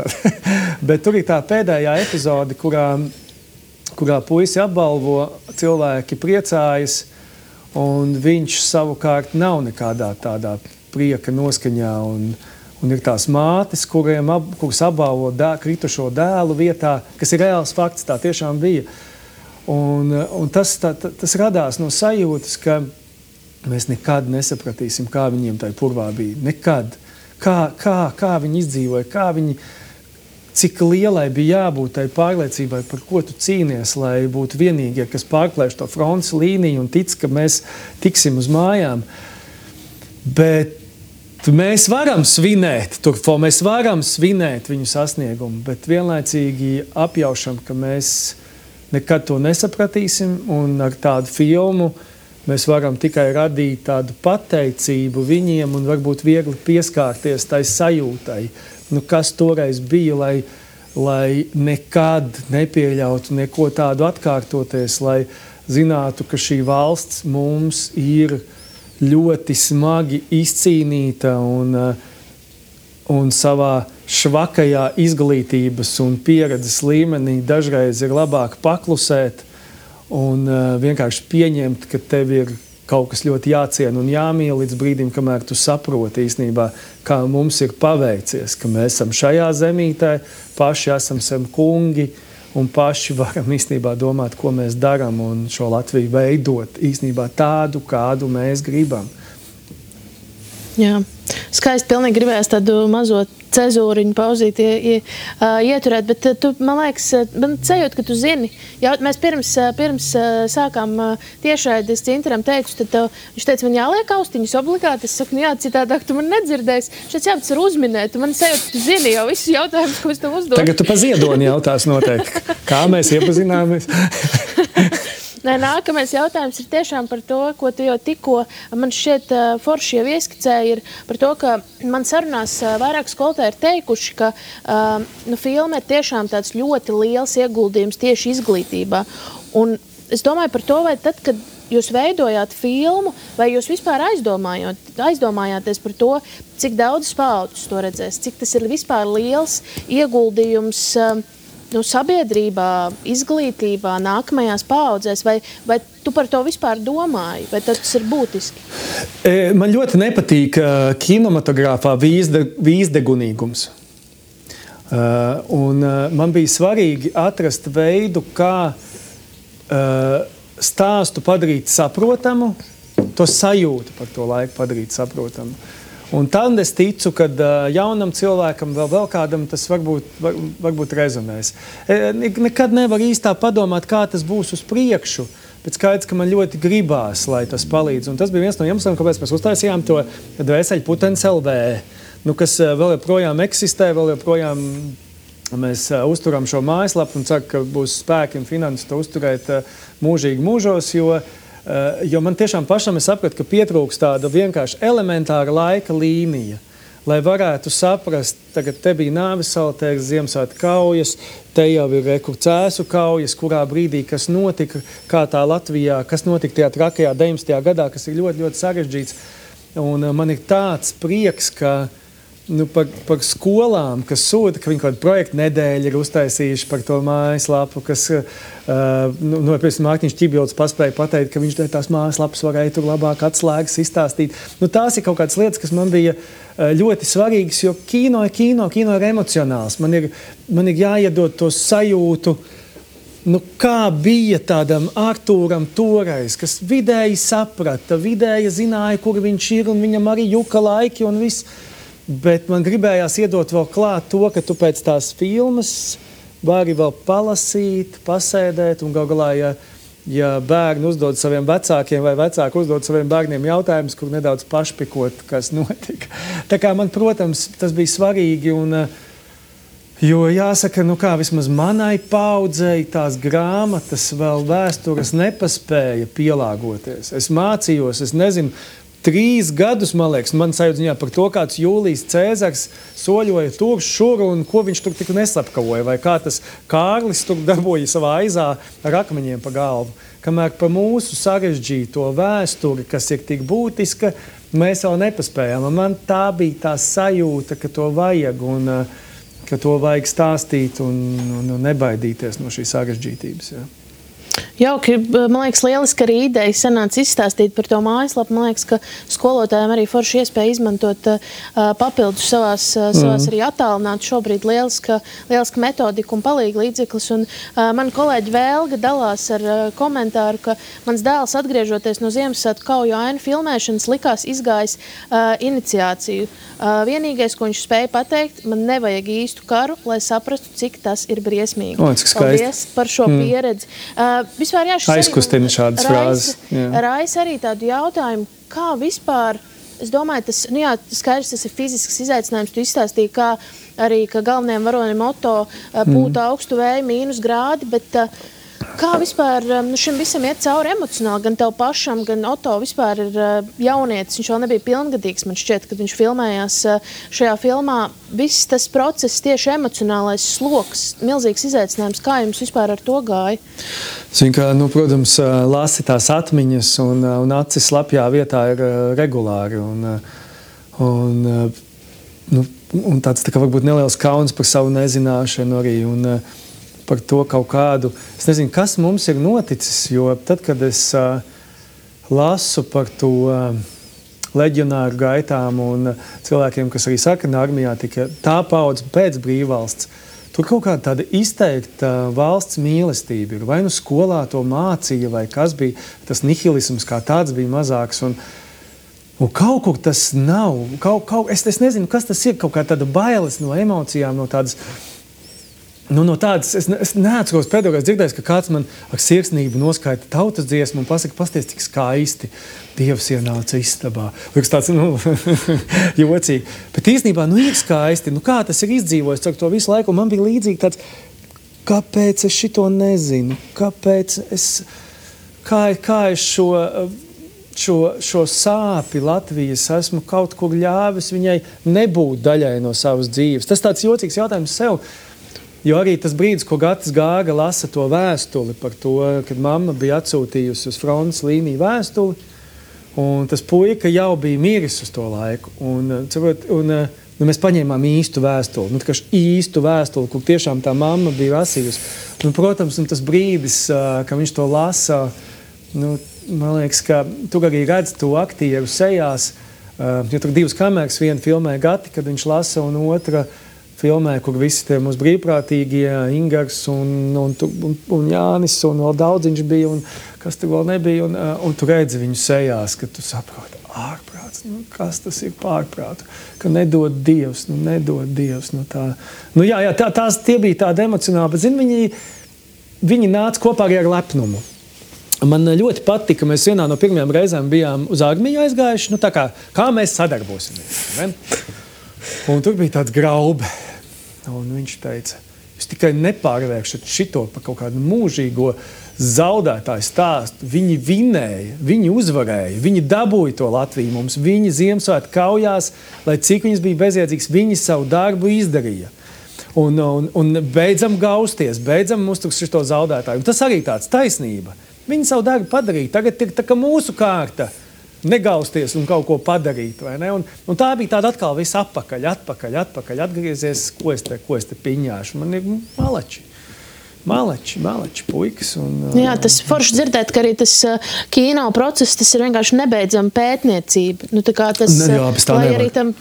Bet tur ir tā pēdējā epizode, kurā puisi apbalvo, cilvēki priecājas, un viņš savukārt nav nekādā tādā prieka noskaņā, Un ir tās mātes, kuras apbalvo kritušo dēlu vietā, kas ir reāls fakts, tā tiešām bija. Un tas radās no sajūtas, ka mēs nekad nesapratīsim, kā viņiem tajā purvā bija. Nekad. Kā viņi izdzīvoja, cik lielai bija jābūt tai pārliecībai, par ko tu cīnies, lai būtu vienīgie, kas pārklēš to frontes līniju un tic, ka mēs tiksim uz mājām. Bet mēs varam svinēt, mēs varam svinēt viņu sasniegumu, bet vienlaicīgi apjaušam, ka mēs nekad to nesapratīsim, un ar tādu filmu mēs varam tikai radīt tādu pateicību viņiem un varbūt viegli pieskārties tai sajūtai, kas toreiz bija, lai nekad nepieļautu neko tādu atkārtoties, lai zinātu, ka šī valsts mums ir ļoti smagi izcīnīta un savā švakajā izglītības un pieredzes līmenī dažreiz ir labāk paklusēt un vienkārši pieņemt, ka tev ir kaut kas ļoti jāciena un jāmīl līdz brīdim, kamēr tu saproti īstenībā, kā mums ir paveicies, ka mēs esam šajā zemītē, paši esam sev kungi un paši varam īstenībā domāt, ko mēs daram un šo Latviju veidot īstenībā tādu, kādu mēs gribam. Jā, skaisti, pilnīgi gribējās tādu mazo cezūriņu pauzīt ieturēt, bet tu, man liekas, man sajūt, ka tu zini. Mēs pirms sākām tiešraidi, es Cintaram teicu, tad viņš teica, man jāliek austiņas obligāti. Es saku, jā, citādāk tu man nedzirdēsi. Šeit tas var uzminēt. Man sajūt, ka tu zini jau visus jautājumus, ko es tev uzdodu. Tagad tu pa Ziedoni jautās noteikti. Kā mēs iepazināmies? Nākamais jautājums ir tiešām par to, ko tu jau tikko man šķiet forši jau ieskicēji, ir par to, ka man sarunās vairāk skolotāji ir teikuši, ka filma ir tiešām tāds ļoti liels ieguldījums tieši izglītībā. Un es domāju par to, vai tad, kad jūs veidojāt filmu, vai jūs vispār aizdomājāties par to, cik daudz paaudzes to redzēs, cik tas ir vispār liels ieguldījums sabiedrībā, izglītībā, nākamajās paaudzēs, vai tu par to vispār domāji, vai tas ir būtiski? Man ļoti nepatīk kinematogrāfā vīzdegunīgums. Un man bija svarīgi atrast veidu, kā stāstu padarīt saprotamu, to sajūtu par to laiku padarīt saprotamu. Un tad es ticu, ka jaunam cilvēkam, vēl kādam tas varbūt rezonēs. Nekad nevar īstā padomāt, kā tas būs uz priekšu, bet skaidrs, ka man ļoti gribās, lai tas palīdz. Un tas bija viens no iemesliem, kāpēc mēs uztaisījām to Dvēseļu putenis LV, kas vēl joprojām eksistē, vēl joprojām mēs uzturam šo mājaslapu un ceru, ka būs spēki un finanses to uzturēt mūžīgi mūžos, jo man tiešām pašam es sapratu, ka pietrūks tāda vienkārši elementāra laika līnija, lai varētu saprast, tagad te bija Nāvisaltēks, Ziemassvētku kaujas, te jau ir Cēsu kaujas, kurā brīdī, kas notika, kā tā Latvijā, kas notika tajā trakajā 19. gadā, kas ir ļoti, ļoti sarežģīts. Un man ir tāds prieks, ka par skolām, kas sūta, ka viņi kaut kādu projektu nedēļu ir uztaisījuši par to mājaslapu, kas, piemēram, Mārtiņš Ķibilds paspēja pateikt, ka viņš tās mājaslapas varēja tur labāk atslēgas izstāstīt. Tās ir kaut kādas lietas, kas man bija ļoti svarīgas, jo kino ir emocionāls. Man ir jāiedod to sajūtu, kā bija tādam Artūram toreiz, kas vidēji saprata, vidēji zināja, kur viņš ir, un viņam arī juka laiki un viss. Bet man gribējās iedot vēl klāt to, ka tu pēc tās filmas vari vēl palasīt, pasēdēt, un gal galā, ja bērni uzdod saviem vecākiem vai vecāki uzdod saviem bērniem jautājumus, kur nedaudz pašpikot, kas notika. Tā kā man, protams, tas bija svarīgi, jo jāsaka, vismaz manai paaudzei tās grāmatas vēl vēstures nepaspēja pielāgoties. Es mācījos, es nezinu, 3 gadus, man liekas, man sajūta par to, kāds Jūlijs Cēzars soļoja tur, šur, un ko viņš tur tik neslapkavoja, vai kā tas Kārlis tur darboja savā aizā ar akmeņiem pa galvu. Kamēr pa mūsu sarežģīto vēsturi, kas ir tik būtiska, mēs vēl nepaspējām. Man tā bija tā sajūta, ka to vajag, un ka to vajag stāstīt un nebaidīties no šīs sarežģītības. Jauki, man liekas, lieliski arī ideja sanāca izstāstīt par to mājaslapu. Man liekas, ka skolotājiem arī forši iespēja izmantot papildus savās arī attālināt šobrīd lieliska metodika un palīga līdzeklis. Un man kolēģi Vēlga dalās ar komentāru, ka mans dēls atgriežoties no Ziemassvētku kauju ainu filmēšanas likās izgājis iniciāciju. Vienīgais, ko viņš spēja pateikt, man nevajag īstu karu, lai saprastu, cik tas ir briesmīgi. Paldies par šo pieredzi. Vispār, aizkustina šādas frāzes. Raisa arī tādu jautājumu, kā vispār, es domāju, skaidrs, tas ir fizisks izaicinājums, tu izstāstīji, kā arī, ka galvenajam varonim Oto pūta augstu vēju mīnus grādi, bet kā vispār šim visam iet cauri emocionāli, gan tev pašam, gan Oto vispār ir jaunietis, viņš vēl nebija pilngadīgs, man šķiet, kad viņš filmējās šajā filmā. Viss tas process, tieši emocionālais sloks, milzīgs izaicinājums, kā jums vispār ar to gāja? Zin, ka, protams, lasi tās atmiņas un acis slapjā vietā ir regulāri un tāds tā kā varbūt neliels kauns par savu nezināšanu arī un par to kaut kādu, es nezinu, kas mums ir noticis, jo tad, kad es lasu par to leģionāru gaitām un cilvēkiem, kas arī sarkanā armijā tika tā paudze pēc brīvvalsts, tur kaut kāda tāda izteikta valsts mīlestība ir. Vai skolā to mācīja, vai kas bija, tas nihilisms kā tāds bija mazāks un kaut kur tas nav. Es nezinu, kas tas ir, kaut kā tāda bailes no emocijām, no tādas. No tādas, es neatceros pēdējais dzirdējis, ka kāds man ar sirsnību noskaita tautas dziesmu un pasaka, pasties, cik skaisti Dievs ienāca istabā. Liekas tāds, jocīgi. Bet īstenībā, ir skaisti. Kā tas ir izdzīvojis ar to visu laiku? Un man bija līdzīgi tāds, kāpēc es šito nezinu? Kāpēc kā es šo sāpi Latvijas esmu kaut kur ļāvis viņai nebūt daļai no savas dzīves? Tas tāds jocīgs jautājums sev. Jo arī tas brīdis, ko Gatis Gāga lasa to vēstuli par to, kad mamma bija atsūtījusi uz frontes līniju vēstuli, un tas puika jau bija miris uz to laiku. Un mēs paņēmām īstu vēstuli, īstu vēstuli, kur tiešām tā mamma bija lasījusi. Protams, tas brīdis, ka viņš to lasa, man liekas, ka tur arī redz to aktieru sejās, jo tur divas kameras, viena filmē Gati, kad viņš lasa, un otra filmē, kur visi tie mūsu brīvprātīgie, Ingars un Jānis, un vēl daudziņš bija, un kas tur vēl nebija, un tu redzi viņu sejās, ka tu saproti, ārprāts, kas tas ir pārprātu, ka nedod Dievs, tā. Tie bija tādi emocionāli, bet, viņi nāca kopā arī ar lepnumu. Man ļoti patika, mēs vienā no pirmajām reizēm bijām uz armiju aizgājuši, kā mēs sadarbosimies, ne? Un tur bija tāds Graube, un viņš teica, jūs tikai nepārvēršat šito par kaut kādu mūžīgo zaudētāju stāstu. Viņi vinēja, viņi uzvarēja, viņi dabūja to Latviju mums, viņi Ziemassvētku kaujās, lai cik viņas bija bezjēdzīgs, viņi savu darbu izdarīja. Un beidzam gausties, beidzam uztrukt šito zaudētāju. Un tas arī tāds taisnība. Viņi savu darbu padarīja, tagad ir tā kā mūsu kārta. Negausties un kaut ko padarīt, vai ne? Un tā bija tāda atkal viss atpakaļ, atgriezies, ko es te piņāšu. Man ir maleči puikas. Jā, tas forši dzirdēt, ka arī tas kino process, tas ir vienkārši nebeidzama pētniecība. Lai arī tam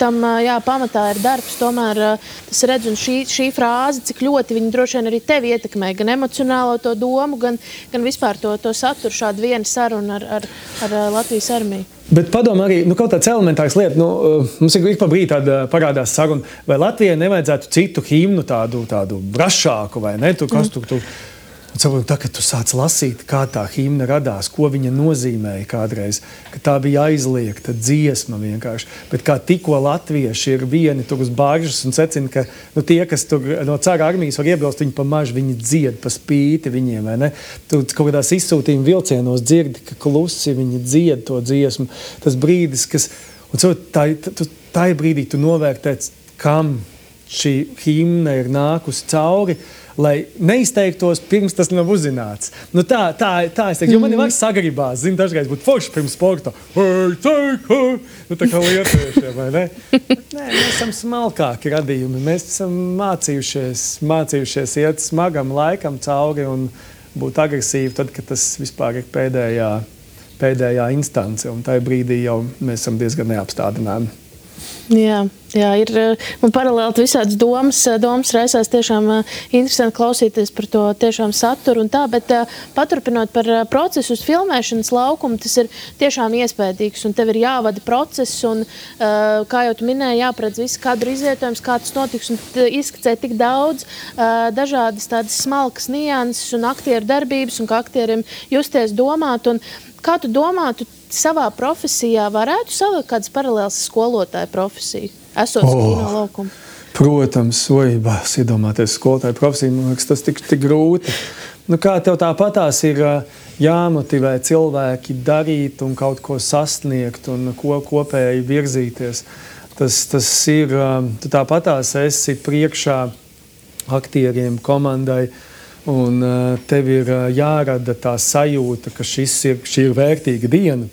pamatā ir darbs, tomēr tas redz, un šī frāze, cik ļoti viņi droši vien arī tevi ietekmē, gan emocionālo to domu, gan vispār to saturu šādu vienu sarunu ar Latvijas armiju. Bet padomā arī, kaut tāds elementārs lieta, mums ir pa brīdi tāda parādās saruna, vai Latvijai nevajadzētu citu himnu tādu brašāku, vai ne? Kas tur. Tā, kad tu sāc lasīt, kā tā himna radās, ko viņa nozīmēja kādreiz, ka tā bija aizliegta dziesma vienkārši. Bet kā tikko latvieši ir vieni tur uz baržas un secina, ka tie, kas tur no cara armijas var iebilst, viņi pa mažu, viņi dzied pa spīti viņiem, vai ne? Tu kaut kādās izsūtījuma vilcienos dzirdi, ka klusi viņi dzied to dziesmu. Tas brīdis, kas... Un tā brīdī tu novērtēts, kam šī himna ir nākusi cauri, lai neizteiktos pirms tas nav uzzināts. Tā es teiktu, jo man ir vairs sagribās, dažreiz būt forši pirms sporta. Tā kā lietuviešiem, vai ne? Nē, mēs esam smalkāki radījumi, mēs esam mācījušies iet smagam laikam cauri un būt agresīvi, tad, kad tas vispār ir pēdējā instance, un tajā brīdī jau mēs esam diezgan neapstādināmi. Jā, ir man paralēli visādas domas raisās tiešām interesanti klausīties par to tiešām saturu un tā, bet paturpinot par procesu uz filmēšanas laukumu, tas ir tiešām iespējīgs un tev ir jāvada process un, kā jau tu minēji, jāpredz visu kadru izvietojums, kā tas notiks un izskicē tik daudz dažādas tādas smalkas nianses un aktieru darbības un kā aktieriem justies domāt un kā tu domā, tu savā profesijā varētu savilkt kādas paralēlas skolotāja profesiju, esot kino laukumu? Protams, bās iedomāties skolotāju profesiju, man liekas, tas tik grūti. Kā tev tāpatās ir jāmotivē cilvēki darīt un kaut ko sasniegt un kopēji virzīties. Tas ir, tu tāpatās esi priekšā aktieriem, komandai, un tev ir jārada tā sajūta, ka šī ir vērtīga diena.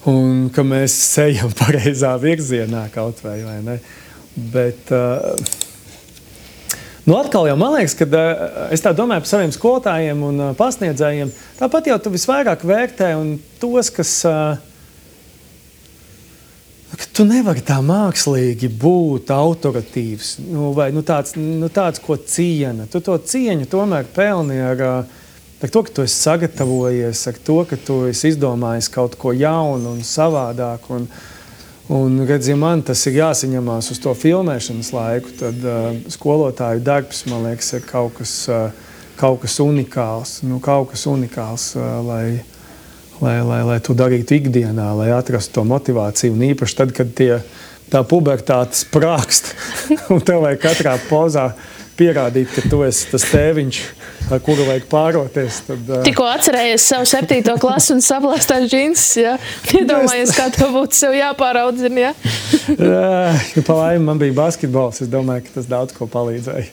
Un ka mēs ejam pareizā virzienā kaut vai ne. Bet, atkal jau man liekas, ka es tā domāju par saviem skolotājiem un pasniedzējiem, tāpat jau tu visvairāk vērtē un tos, kas... Tu nevari tā mākslīgi būt autoritīvs, vai tāds, ko ciena. Tu to cieņu tomēr pelni ar to, ka tu esi sagatavojies, ar to, ka tu esi izdomājis kaut ko jaunu un savādāk. Un redz, ja man tas ir jāsaņemās uz to filmēšanas laiku, tad skolotāju darbs, man liekas, ir kaut kas unikāls. Kaut kas unikāls, lai to darītu ikdienā, lai atrastu to motivāciju. Un īpaši tad, kad tā pubertāte sprākst, un tev vajag katrā pozā pierādīt, ka tu esi tas tēviņš, ar kuru vajag pāroties. Tikko atcerējies savu 7. klasu un saplāstās džinsus, ja? Iedomājies, kā tev būtu sev jāpāraudzina, ja? Pa laimi man bija basketbols, es domāju, ka tas daudz ko palīdzēja.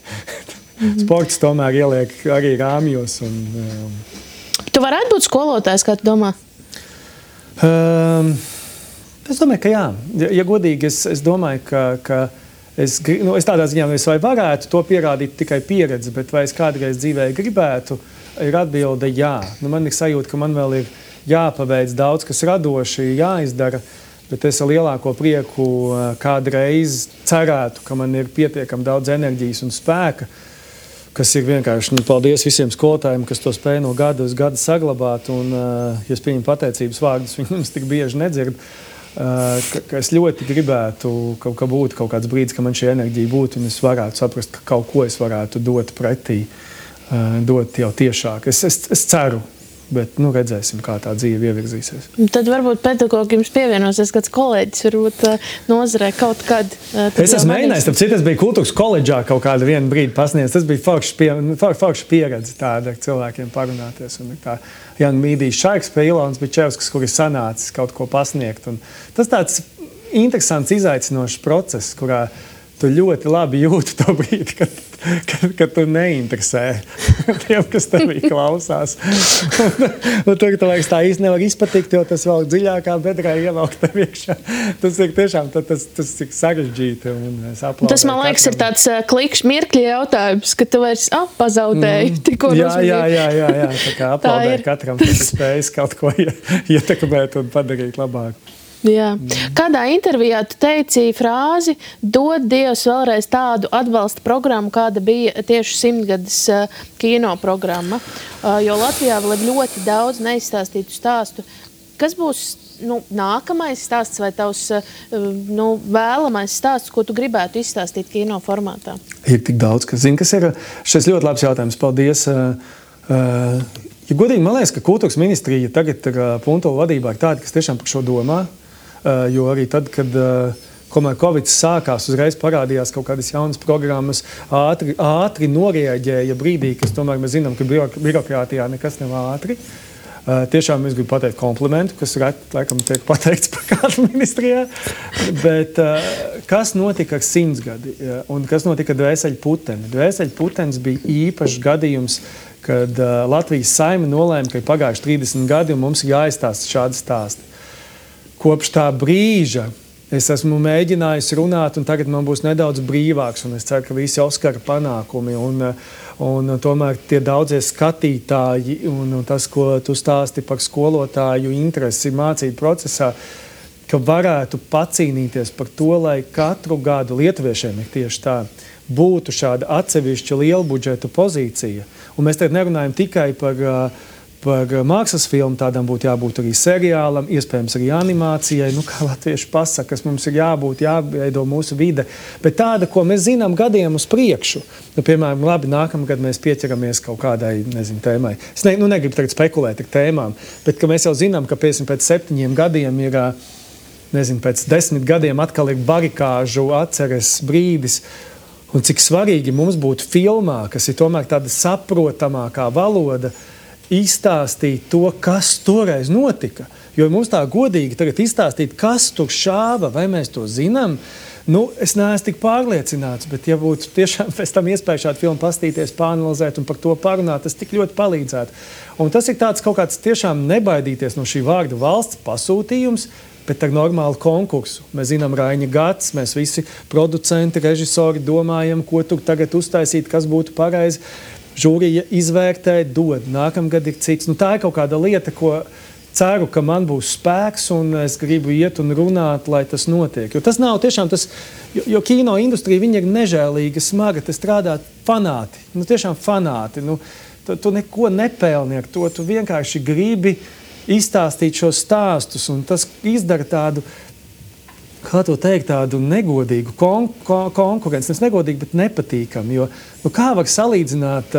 Sports tomēr ieliek arī rāmjos un... Tu varētu būt skolotājs, kā tu domā? Es domāju, ka jā. Ja godīgi, es domāju, ka es tādā ziņā vai varētu to pierādīt tikai pieredzi, bet vai es kādreiz dzīvē gribētu, ir atbilde jā. Man ir sajūta, ka man vēl ir jāpaveic daudz, kas radoši jāizdara, bet es ar lielāko prieku kādreiz cerētu, ka man ir pietiekami daudz enerģijas un spēka, kas ir vienkārši, paldies visiem skolotājiem, kas to spēja no gada uz gadu saglabāt, un, ja es pieņemu pateicības vārdus, viņi mums tik bieži nedzird, ka es ļoti gribētu, ka būtu kaut kāds brīdis, ka man šī enerģija būtu, un es varētu saprast, ka kaut ko es varētu dot pretī, dot jau tiešāk. Es ceru, bet redzēsim, kā tā dzīve ievirzīsies. Tad varbūt pedagogi jums pievienosies kāds kolēģis, varbūt nozarē kaut kad. Es esmu mēģinājis, tāpēc es biju kultūras koledžā kaut kādu vienu brīdi pasniedz. Tas bija forša pieredze tāda ar cilvēkiem parunāties. Un tā Jānis Mīdijs Šaiks pie Ilons Bičevskas, kur ir sanācis kaut ko pasniegt. Un tas tāds interesants, izaicinošs process, kurā tu ļoti labi jūti to brīdi, kad tu neinteresē tiem, kas tevī klausās. Un tur, tu liekas, tā īsti nevar izpatikt, jo tas vēl dziļākā bedrē ievelk tev iekšā. Tas ir tiešām, tas ir sarežģīti. Tas, man liekas, ir tāds klikšķi mirkļi jautājums, ka tu vairs pazaudēji tikko uzmanību. Jā. Tā kā aplaudē katram, kas spējas kaut ko ietekmēt un padarīt labāk. Jā. Kādā intervijā tu teici frāzi dod Dievs vēlreiz tādu atbalsta programmu, kāda bija tieši 100-gades kino programma, jo Latvijā vēl ir ļoti daudz neizstāstītu stāstu. Kas būs nākamais stāsts vai tavs vēlamais stāsts, ko tu gribētu izstāstīt kino formātā? Ir tik daudz, kas zina, kas ir šis ļoti labs jautājums. Paldies! Ja godīgi, man liekas, ka kultūras ministrija tagad ir Puntola vadībā ir tāda, kas tiešām par šo domā. Jo arī tad, kad Covid sākās, uzreiz parādījās kaut kādas jaunas programmas, ātri norieģēja brīdī, kas tomēr mēs zinām, ka birokrātijā nekas nav ātri. Tiešām es gribu pateikt komplimentu, kas laikam tiek pateikts par kādu ministrijā. Bet kas notika ar 100 gadi un kas notika ar Dvēseļputeni? Dvēseļputenis bija īpašs gadījums, kad Latvijas Saeima nolēma, ka ir pagājuši 30 gadi un mums ir jāizstāsta šādi stāsti. Kopš tā brīža Es esmu mēģinājis runāt, un tagad man būs nedaudz brīvāks, un es ceru, ka visi Oskara panākumi un tomēr tie daudzie skatītāji un tas, ko tu stāsti par skolotāju interesi mācību procesā, ka varētu pacīnīties par to, lai katru gadu lietuviešiem ir tieši tā, būtu šāda atsevišķa liela budžeta pozīcija. Un mēs tagad nerunājam tikai par mākslas filmu, tādam būtu jābūt arī seriālam, iespējams arī animācijai, kā latvieši pasaka, kas mums ir jāveido mūsu vide, bet tāda, ko mēs zinām gadiem uz priekšu. Piemēram, labi, nākamgad mēs pieķeramies kaut kādai, tēmai. Es negribu tagad spekulēt ar tēmām, bet ka mēs jau zinām, ka pēc 7 gadiem ir, pēc 10 gadiem atkal ir barikāžu atceres brīdis, un cik svarīgi mums būtu filmā, kas ir tomēr tāda saprotamākā valoda, izstāstīt to, kas toreiz notika. Jo mums tā godīgi tagad izstāstīt, kas tur šāva, vai mēs to zinām, es neesmu tik pārliecināts, bet ja būtu tiešām pēc tam iespēja šādu filmu pastīties, pāanalizēt un par to parunāt, tas tik ļoti palīdzētu. Un tas ir tāds kaut kāds tiešām nebaidīties no šī vārda valsts pasūtījums, bet ar normālu konkursu. Mēs zinām Raiņa gads, mēs visi producenti, režisori domājam, ko tur tagad uztaisīt, kas būtu pareizi. Žūrija izvērtē, dod. Nākamgad ir cits. Tā ir kaut kāda lieta, ko ceru, ka man būs spēks un es gribu iet un runāt, lai tas notiek. Jo tas nav tiešām tas, jo kino industrija, viņa ir nežēlīga, smaga, te strādā fanāti. Tiešām fanāti. Tu neko nepelni ar to, tu vienkārši gribi izstāstīt šos stāstus, un tas izdara tādu, kā to teikt, tādu negodīgu konkurenci. Tas negodīgi, bet nepatīkami, jo kā var salīdzināt,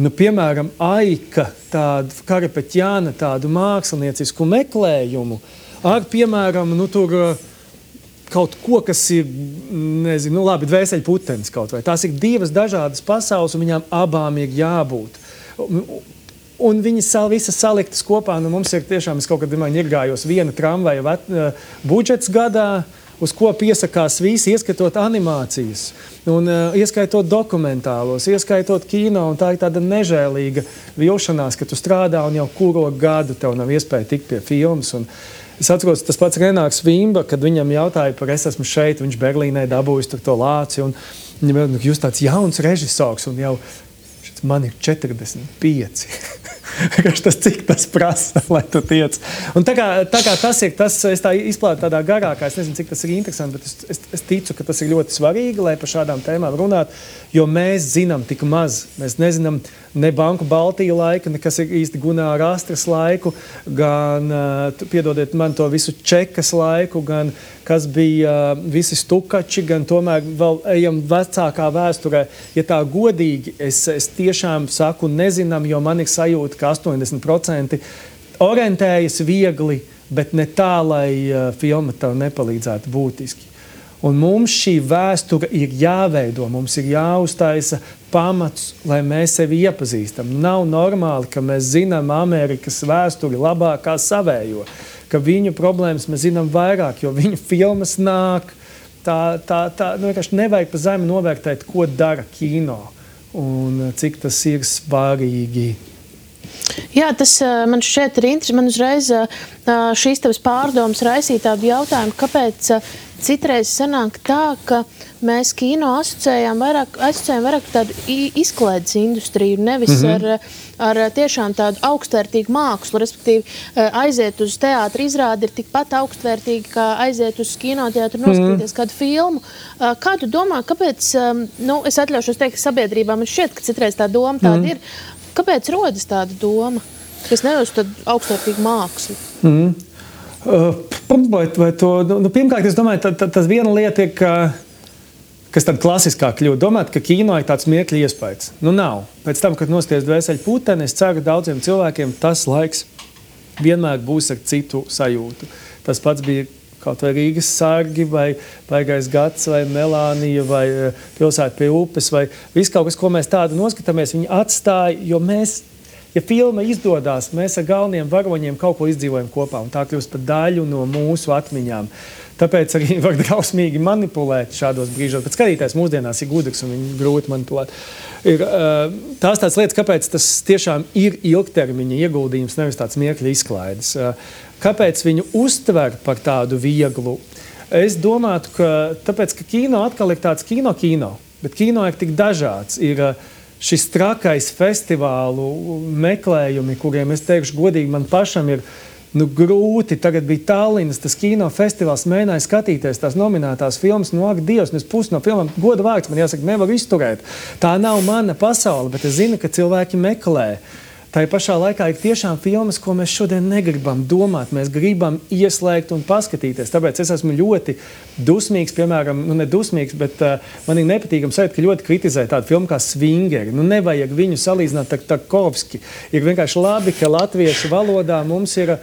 piemēram, Aika, tādu Karapeķjāna, tādu māksliniecisku meklējumu ar, piemēram, tur kaut ko, kas ir, labi, dvēseļputenis kaut vai. Tās ir divas dažādas pasaules, un viņām abām ir jābūt. Un viņas visas saliktas kopā, mums ir tiešām, es kaut kad ņirgājos viena tramvaja budžets gadā, uz ko piesakās visi, ieskatot animācijas, un ieskaitot dokumentālos, ieskaitot kino, un tā ir tāda nežēlīga vilšanās, ka tu strādā un jau kuro gadu tev nav iespēja tikt pie filmas. Un es atceros, tas pats Renāks Vimba, kad viņam jautāja par es esmu šeit, viņš Berlīnē dabūjis to lāci, un viņam jūs tāds jauns režisors, un jau man ir 45. Cik tas prasa, lai tu tiec. Un tā kā tas ir, es tā izplātu tādā garākā, es nezinu, cik tas ir interesanti, bet es ticu, ka tas ir ļoti svarīgi, lai par šādām tēmām runāt, jo mēs zinām tik maz. Mēs nezinām ne Banku Baltija laika, nekas ir īsti Gunāra Astras laiku, gan, piedodiet man to visu Čekas laiku, gan kas bija visi stukači, gan tomēr vēl ejam vecākā vēsturē. Ja tā godīgi, es tiešām saku nezinām, jo man ir sajūta, ka 80% orientējas viegli, bet ne tā, lai filma tev nepalīdzētu būtiski. Un mums šī vēsture ir jāveido, mums ir jāuztaisa pamats, lai mēs sevi iepazīstam. Nav normāli, ka mēs zinām Amerikas vēsturi labāk kā savējo, ka viņu problēmas mēs zinām vairāk, jo viņu filmas nāk. Vienkārši nevajag pa zemi novērtēt, ko dara kino un cik tas ir svarīgi. Jā, tas man šķiet ir interesanti. Man uzreiz šīs tavas pārdomas raisīja tādu jautājumu, kāpēc citreiz sanāk tā, ka mēs kino asociējam vairāk tādu izklaides industriju, nevis ar tiešām tādu augstvērtīgu mākslu, respektīvi aiziet uz teātra izrādi ir tikpat augstvērtīgi, kā aiziet uz kinoteātru noskatīties kādu filmu. Kā tu domā, kāpēc, es atļaušos teikt, sabiedrībā man šķiet, ka citreiz tā doma tāda ir, kāpēc rodas tāda doma, kas nevis tādu augstvērtīgu mākslu? Pirmkārt, es domāju, tas viena lieta ir, kas tad klasiskāk kļūt. Domāt, ka kino ir tāds miekļa iespējas. Nav. Pēc tam, kad nosties dvēseļu puteni, es ceru, ka daudziem cilvēkiem tas laiks vienmēr būs ar citu sajūtu. Tas pats bija kaut vai Rīgas sargi, vai Baigais gads, vai Melānija, vai Pilsēta pie upes, vai viss kaut kas, ko mēs tādu noskatāmies, viņi atstāja, jo mēs, ja filma izdodās, mēs ar galveniem varoņiem kaut ko izdzīvojam kopā, un tā kļūst par daļu no mūsu atmiņām. Tāpēc arī var drausmīgi manipulēt šādos brīžos, bet skatītājs mūsdienās ir gudrs un viņu grūti manipulēt. Ir tās tādas lietas, kāpēc tas tiešām ir ilgtermiņa ieguldījums, nevis tāds miekļa izklaides. Kāpēc viņu uztver par tādu vieglu? Es domātu, ka tāpēc, ka kino atkal ir tāds kino, bet kino ir tik dažāds. Ir šis trakais festivālu meklējumi, kuriem es teikšu godīgi, man pašam ir grūti. Tagad bija Tallinas, tas kinofestivāls, mēģināja skatīties tās nominētās filmas, ak, Dievs, es pusi no filmām, goda vārds, man jāsaka, nevaru izturēt. Tā nav mana pasaule, bet es zinu, ka cilvēki meklē. Tā pašā laikā ir tiešām filmas, ko mēs šodien negribam domāt. Mēs gribam ieslēgt un paskatīties. Tāpēc es esmu ļoti dusmīgs, piemēram, ne dusmīgs, bet man ir nepatīkami sajūta, ka ļoti kritizē tādu filmu kā Svingeri. Nevajag viņu salīdzināt ar Tarkovski. Ir vienkārši labi, ka latviešu valodā mums ir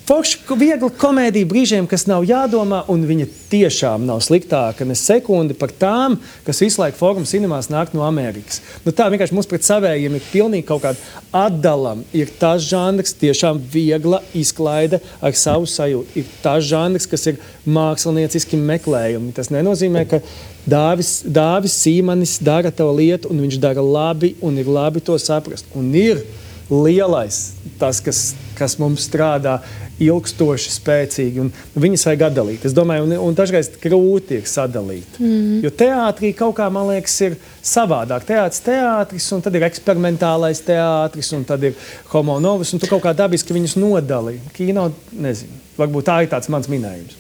forši viegla komēdija brīžiem, kas nav jādomā, un viņa tiešām nav sliktāka ne sekundi par tām, kas visu laiku Forum cinemās nāk no Amerikas. Tā vienkārši mums pret savējiem ir pilnīgi kaut kāda atdalam. Ir tas žanrs, tiešām viegla izklaide ar savu sajūtu. Ir tas žanrs, kas ir mākslinieciski meklējumi. Tas nenozīmē, ka Dāvis Sīmanis dara tavu lietu, un viņš dara labi, un ir labi to saprast. Un ir lielais, tas, kas mums strādā ilgstoši, spēcīgi, un viņas vajag atdalīt. Es domāju, un dažreiz grūti ir sadalīt. Jo teātrī kaut kā, man liekas, ir savādāk. Teātris, un tad ir eksperimentālais teātris, un tad ir homo novus, un tu kaut kā dabiski viņus nodali. Kino, nezinu. Varbūt tā ir tāds mans minējums.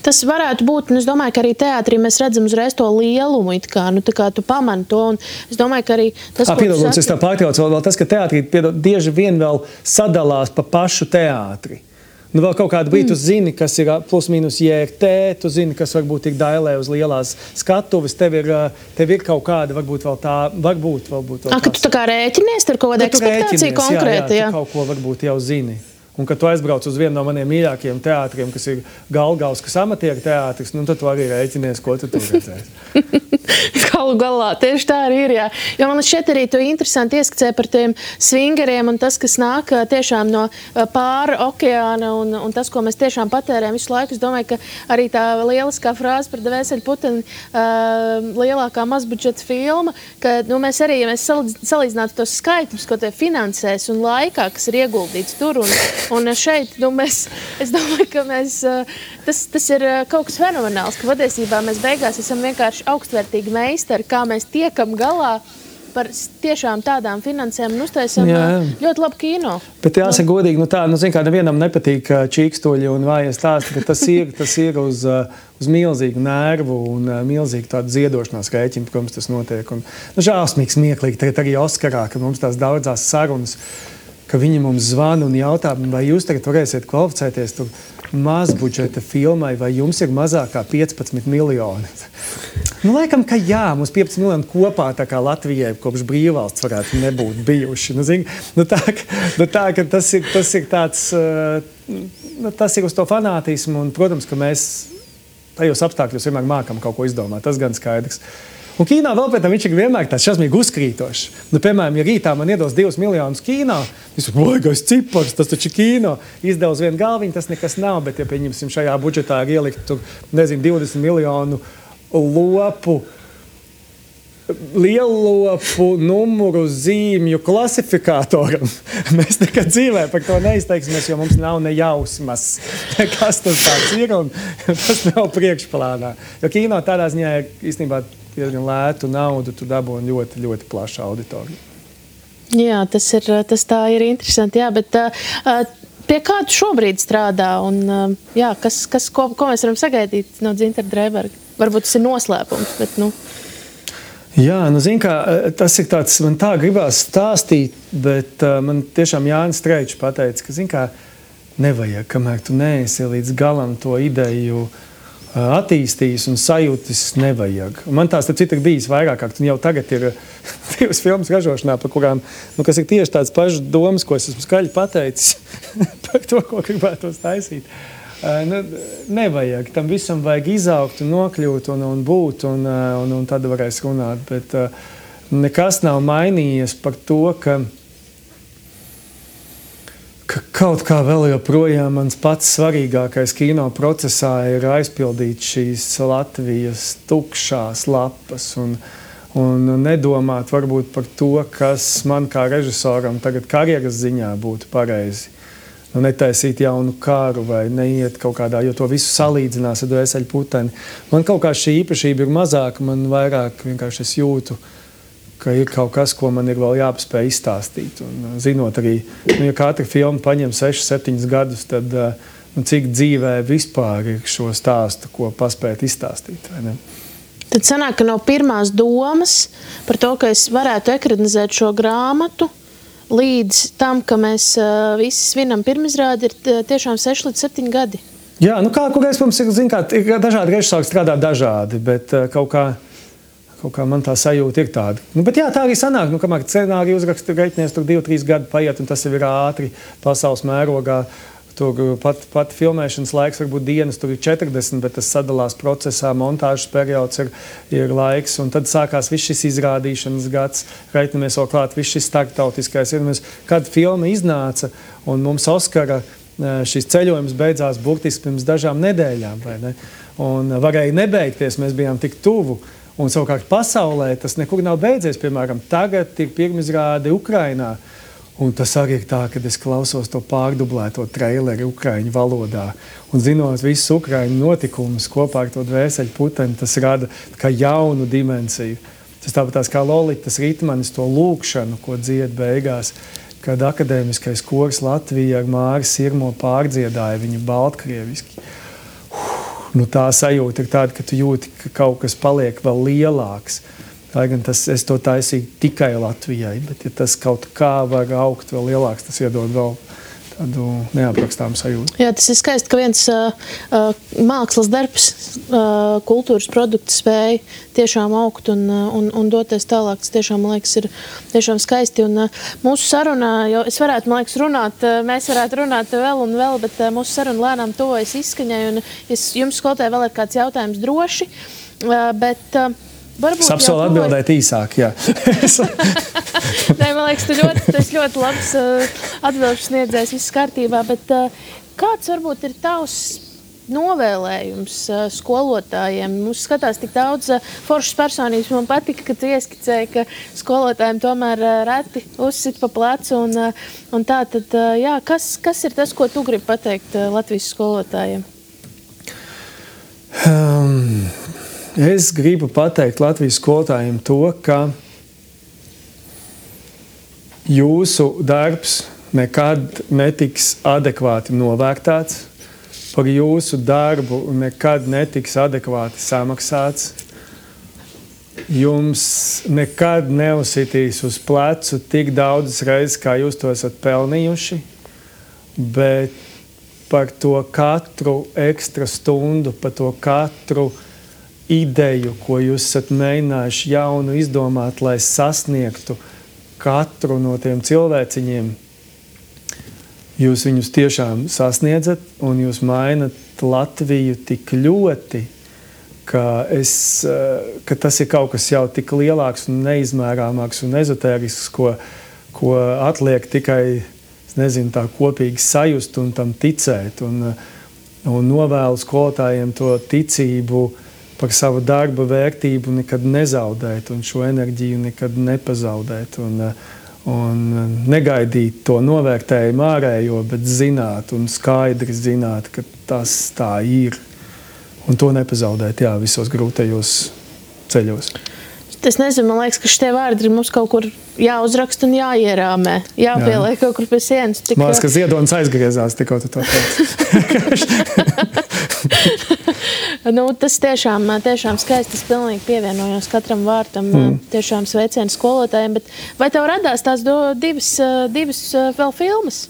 Tas varētu būt, un es domāju, ka arī teātrī mēs redzam uzreiz to lielumu, tā kā tu pamani to, un es domāju, ka arī tas, ko tu saki... Es tā pārtraucu vēl tas, ka teātrī bieži vien vēl sadalās pa pašu teātri. Vēl kaut kādu brīdi tu zini, kas ir plus mīnus JRT, tu zini, kas varbūt ir dailē uz lielās skatuves, tev ir kaut kāda, varbūt vēl tā, varbūt vēl tās. Ka tu tā kā rēķinies ar kaut kādu ekspektāciju konkrēti, jā. Tu kaut ko varbūt jau zini. Un, kad tu aizbrauc uz vienu no maniem mīļākajiem teātriem, kas ir Galgauskas amatieru teātris, tad tu arī rēķinies, ko tu tur redzēsi. Galu galā, tieši tā arī ir, jā. Jo man šeit arī tu interesanti ieskicē par tiem svingeriem un tas, kas nāk tiešām no pāri okeāna un tas, ko mēs tiešām patērējam visu laiku. Es domāju, ka arī tā lieliskā frāze par Dvēseli Puteni lielākā mazbudžeta filma, ka mēs arī, ja mēs salīdzinātu tos skaitļus, ko tie finansēs un laikā, kas ir ieguldīts tur un šeit, es domāju, ka tas ir kaut kas fenomenāls, ka patiesībā mēs beigās esam vienkārši augstvērtīgi meistari, kā mēs tiekam galā par tiešām tādām finansēm un uztaisam ļoti labu kino. Bet jāsaka godīgi, zin kā, nevienam nepatīk čīkstoļi un vājas stāsti, ka tas ir uz milzīgu nervu un milzīgu tādu ziedošanās rēķinu, protams, tas notiek. Un, žālsmīgi smieklīgi, tagad arī Oskarā, kad mums tās daudzās sarunas, ka viņi mums zvana un jautā, vai jūs tagad varēsiet kvalificēties tur mazbudžeta filmai, vai jums ir mazāk kā 15 miljoni. Laikam, ka jā, mums 15 miljoni kopā tā kā Latvijai kopš brīvvalsts varētu nebūt bijuši. Tā, ka tas ir tāds, tas ir uz to fanātismu, un, protams, ka mēs tajos apstākļos vienmēr mākam kaut ko izdomāt, tas gan skaidrs. Un kīnā vēl pēc tam viņš ir vienmēr tāds šausmīgi uzkrītošs. Piemēram, ja rītā man iedos 2 miljonus kīnā, es vajagais cipars, tas taču kīno. Izdev uz vienu galviņu, tas nekas nav, bet ja pieņemsim šajā budžetā ir ielikt tur, 20 miljonu lopu, lielopu numuru zīmju klasifikātoram. Mēs nekad dzīvē par to neizteiksimies, jo mums nav ne jausmas, kas tas tāds ir, un tas nav priekšplānā. Jo kīno tādā ziņā ir īstenībā diezgan lētu naudu, tu dabūji ļoti, ļoti plašu auditoriju. Jā, tas tā ir interesanti, jā, bet pie kā tu šobrīd strādā un jā, ko mēs varam sagaidīt no Dzintara Dreiberga? Varbūt tas ir noslēpums, bet Jā, zin kā, tas ir tāds, man tā gribās stāstīt, bet man tiešām Jānis Streičs pateica, ka, zin kā, nevajag, kamēr tu neesi līdz galam to ideju attīstījis un sajūtis nevajag. Un man tās, tad citi ir bijis vairāk, un jau tagad ir 2 filmas ražošanā, par kurām, kas ir tieši tāds pašs domas, ko es esmu skaļi pateicis par to, ko gribētos taisīt. Nevajag, tam visam vajag izaugt un nokļūt un būt, un tad varēs runāt, bet nekas nav mainījies par to, ka kaut kā vēl joprojām mans pats svarīgākais kino procesā ir aizpildīt šīs Latvijas tukšās lapas un nedomāt varbūt par to, kas man kā režisoram tagad karjeras ziņā būtu pareizi. netaisīt jaunu kāru vai neiet kaut kādā, jo to visu salīdzinās ar dvēseli puteni. Man kaut kā šī īpašība ir mazāka, man vairāk vienkārši es jūtu, ka ir kaut kas, ko man ir vēl jāpaspēj izstāstīt. Un zinot arī, ja katra filma paņem 6-7 gadus, tad cik dzīvē vispār ir šo stāstu, ko paspēt izstāstīt, vai ne? Tad sanāk, ka no pirmās domas par to, ka es varētu ekranizēt šo grāmatu, līdz tam, ka mēs visi svinam pirmizrādi, ir tiešām 6-7 gadi. Jā, nu kurreiz mums ir dažādi režisori strādā dažādi, bet kaut kā man tā sajūta ir tāda. Bet jā, tā arī sanāk, kamēr scenāriju uzraksta reiķinies, tur 2-3 gadi paiet, un tas jau ir ātri pasaules mērogā. Tur pat filmēšanas laiks varbūt dienas, tur ir 40, bet tas sadalās procesā, montāžas periods ir laiks, un tad sākās viss šis izrādīšanas gads, reiķinamies vēl klāt, viss šis starptautiskais. Kad filma iznāca, un mums Oskara šis ceļojums beidzās burtiski pirms dažām nedēļām, vai ne? Un varēja nebeigties, mēs bijām tik tuvu, un savukārt pasaulē tas nekur nav beidzies, piemēram, tagad ir pirmizrāde Ukrainā. Un tas arī ir tā, kad es klausos to pārdublēto traileri ukraiņu valodā. Un zinot visus ukraiņu notikumus kopā ar to dvēseli puteni, tas rada kā jaunu dimensiju. Tas tāpat kā Lolitas Ritmanis to lūkšanu, ko dzied beigās, kad akadēmiskais kors Latvija ar Māri Sirmo pārdziedāja viņu baltkrieviski. Tā sajūta ir tāda, ka tu jūti, ka kaut kas paliek vēl lielāks. Lai gan es to taisīju tikai Latvijai, bet ja tas kaut kā var augt vēl lielāks, tas iedod vēl tādu neaprakstāmu sajūtu. Jā, tas ir skaisti, ka viens mākslas darbs, kultūras produkts spēja tiešām augt un doties tālāk. Tas tiešām, man liekas, ir tiešām skaisti. Un mūsu sarunā, jo es varētu, man liekas, runāt, mēs varētu runāt vēl un vēl, bet mūsu saruna lēnām tuvojas izskaņai. Un jums, skolotāji, vēl ir kāds jautājums droši, bet... Es apsolu atbildēt īsāk, jā. Nē, man liekas, tu ļoti labs atbildes sniedzējs, viss kārtībā, bet kāds varbūt ir tavs novēlējums skolotājiem? Mums skatās tik daudz foršas personības, man patika, ka tu ieskicēji, ka skolotājiem tomēr reti uzsit pa plecu un tā, tad jā, kas ir tas, ko tu gribi pateikt Latvijas skolotājiem? Es gribu pateikt Latvijas skolotājiem to, ka jūsu darbs nekad netiks adekvāti novērtēts, par jūsu darbu nekad netiks adekvāti samaksāts, jums nekad neuzsitīs uz plecu tik daudzas reizes, kā jūs to esat pelnījuši, bet par to katru ekstra stundu, par to katru ideju, ko jūs esat mēģinājuši jaunu izdomāt, lai sasniegtu katru no tiem cilvēciņiem, jūs viņus tiešām sasniedzat un jūs mainat Latviju tik ļoti, ka tas ir kaut kas jau tik lielāks un neizmērāmāks un ezotērisks, ko atliek tikai, es nezinu, tā kopīgi sajust un tam ticēt. Un novēlu skolotājiem to ticību par savu darba vērtību nekad nezaudēt un šo enerģiju nekad nepazaudēt un negaidīt to novērtējumu ārējo, bet zināt un skaidri zināt, ka tas tā ir un to nepazaudēt, jā, visos grūtajos ceļos. Es nezinu, man liekas, ka šitie vārdi ir mums kaut kur jāuzraksta un jāierāmē, jāpieliek kaut kur pie sienas. Man liekas, ka Ziedonis aizgriezās tikko tu to teici. Tas tiešām skaisti, es pilnīgi pievienojos katram vārtam, tiešām sveicienu skolotājiem, bet vai tev radās tās divas vēl filmas?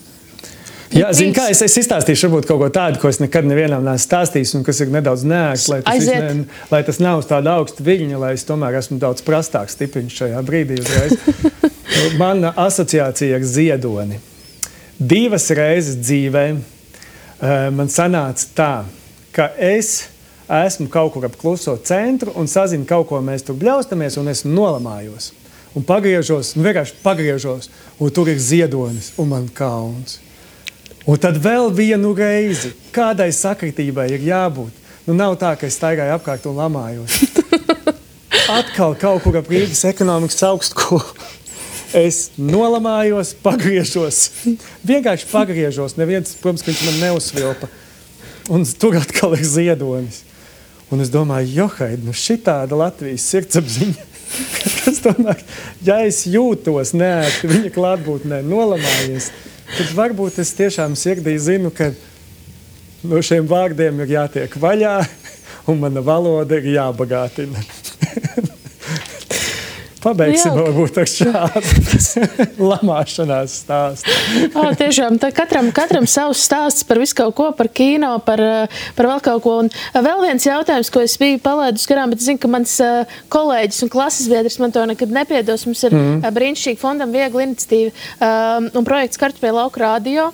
Jā, zini kā, es izstāstīšu varbūt kaut ko tādu, ko es nekad nevienam neesmu stāstījis un kas ir nedaudz neērts, lai tas nav uz tāda augsta viļņa, lai es tomēr esmu daudz prastāks stipiņš šajā brīdī uzreiz. Mana asociācija ar Ziedoni. 2 reizes dzīvē man sanāca tā, ka es esmu kaut kur ap kluso centru un sazinu kaut ko, mēs tur bļaustamies un esmu nolamājos. Un vienkārši pagriežos, un tur ir Ziedonis un man kauns. Un tad vēl vienu reizi, kādai sakritībai ir jābūt. Nav tā, ka es staigāju apkārt un lamājos. Atkal kaut kur ap Rīgas ekonomikas augstskolu. Es nolamājos, pagriežos. Vienkārši pagriežos. Neviens, protams, ka viņš man neuzsvilpa. Un tur atkal ir Ziedonis. Un es domāju, johaid, šitāda Latvijas sirdsapziņa. Es domāju, ja es jūtos neērti viņa klātbūtnē nolamājies, tad varbūt es tiešām sirdī zinu, ka no šiem vārdiem ir jātiek vaļā un mana valoda ir jābagātina. Pabeigsim varbūt ar šādu lamāšanās stāstu. Tiešām, tā katram savs stāsts par visu kaut ko, par kino, par vēl kaut ko. Un vēl viens jautājums, ko es biju palaidus garām, bet es zinu, ka mans kolēģis un klases biedrs man to nekad nepiedos. Mums ir brīnišķīgi fondam viegla iniciatīva un projekts Kartupeļu lauku radio.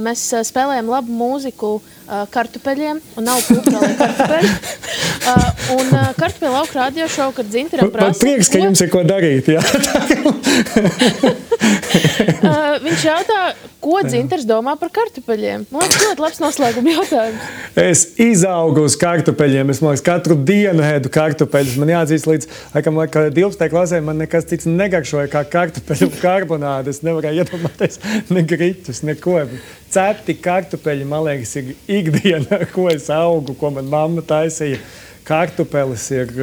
Mēs spēlējam labu mūziku kartupeļiem un nav kulturālai kartupeļi. Un Kartupeļu lauku radio šovu, kad Dzintaram prasa... Man prieks, ka jums ir ko darīt, jā. Viņš jautā, ko Dzintars domā par kartupeļiem. Man liekas, ļoti labs noslēguma jautājums. Es izaugu uz kartupeļiem. Es, man liekas, katru dienu ēdu kartupeļus. Man jāatzīst līdz, laikam, 12. klasē man nekas cits negaršoja kā kartupeļu karbonāde. Es nevarēju iedomāties ne griķus, neko. Cepti kartupeļi, man liekas, ir ikdiena, ar ko es augu, ko man mamma taisīja. Kartupelis ir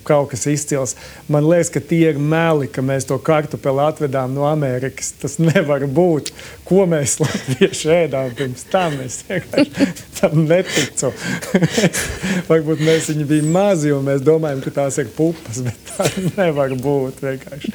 kaut kas izcils. Man liekas, ka tie ir meli, ka mēs to kartupeli atvedām no Amerikas. Tas nevar būt. Ko mēs latvieši ēdām pirms tam? Es tam neticu. Varbūt mēs viņi bija mazi un mēs domājam, ka tās ir pupas, bet tā nevar būt vienkārši.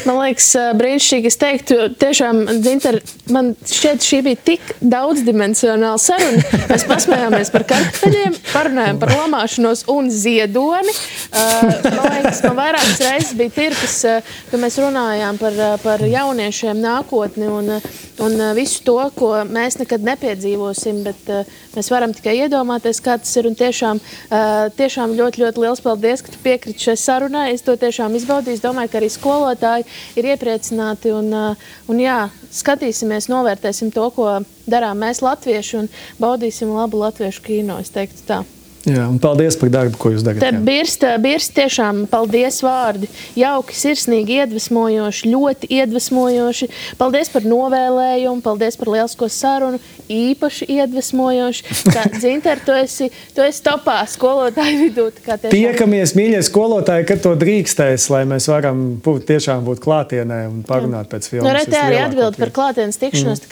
Man liekas, brīnišķīgi. Es teiktu, tiešām, Dzintar, man šķiet, šī bija tik daudzdimensionāla saruna. Mēs pasmējāmies par kartupeļiem, parunājām par lamāšanos un Ziedoni. Man liekas, man vairākas reizes bija tirpis, ka mēs runājām par jauniešiem nākotni un visu to, ko mēs nekad nepiedzīvosim, bet mēs varam tikai iedomāties, kā tas ir. Un tiešām ļoti, ļoti liels paldies, ka tu piekriti šai sarunai. Es to tiešām izbaudīju. Es domāju, ka arī skolotāji ir iepriecināti un jā, skatīsimies, novērtēsim to, ko darām mēs latvieši un baudīsim labu latviešu kino, es teiktu tā. Jā, un paldies par darbu, ko jūs darat. Birst tiešām paldies vārdi. Jauki, sirsnīgi, iedvesmojoši, ļoti iedvesmojoši. Paldies par novēlējumu, paldies par lielisko sarunu, īpaši iedvesmojoši. Dzintar, tu esi topā skolotāju vidū. Tiekamies, mīļie skolotāji, kad to drīkstēs, lai mēs varam tiešām būt klātienē un parunāt pēc filmas. Te arī atbildi par klātienes tikšanos.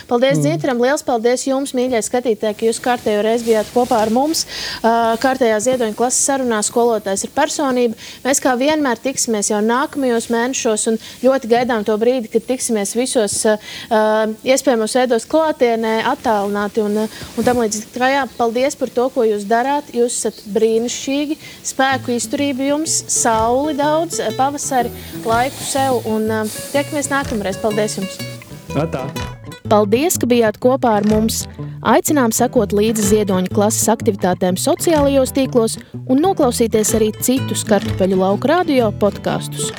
Paldies Dzintaram, liels paldies jums, mīļie skatītāji, ka jūs kārtējo reizi bijāt kopā ar mums. Kārtējā Ziedoņa klases sarunā skolotājs ir personība. Mēs kā vienmēr tiksimies jau nākamajos mēnešos un ļoti gaidām to brīdi, kad tiksimies visos iespējamos veidos klātienē, attālināti un tam līdzīgi. Paldies par to, ko jūs darāt. Jūs esat brīnišķīgi, spēku izturību jums, sauli daudz, pavasari, laiku sev un tiekamies nākamreiz. Paldies jums! Atā! Paldies, ka bijāt kopā ar mums! Aicinām sekot līdzi Ziedoņa klases aktivitātēm sociālajos tīklos un noklausīties arī citus Kartupeļu lauku radio podkastus.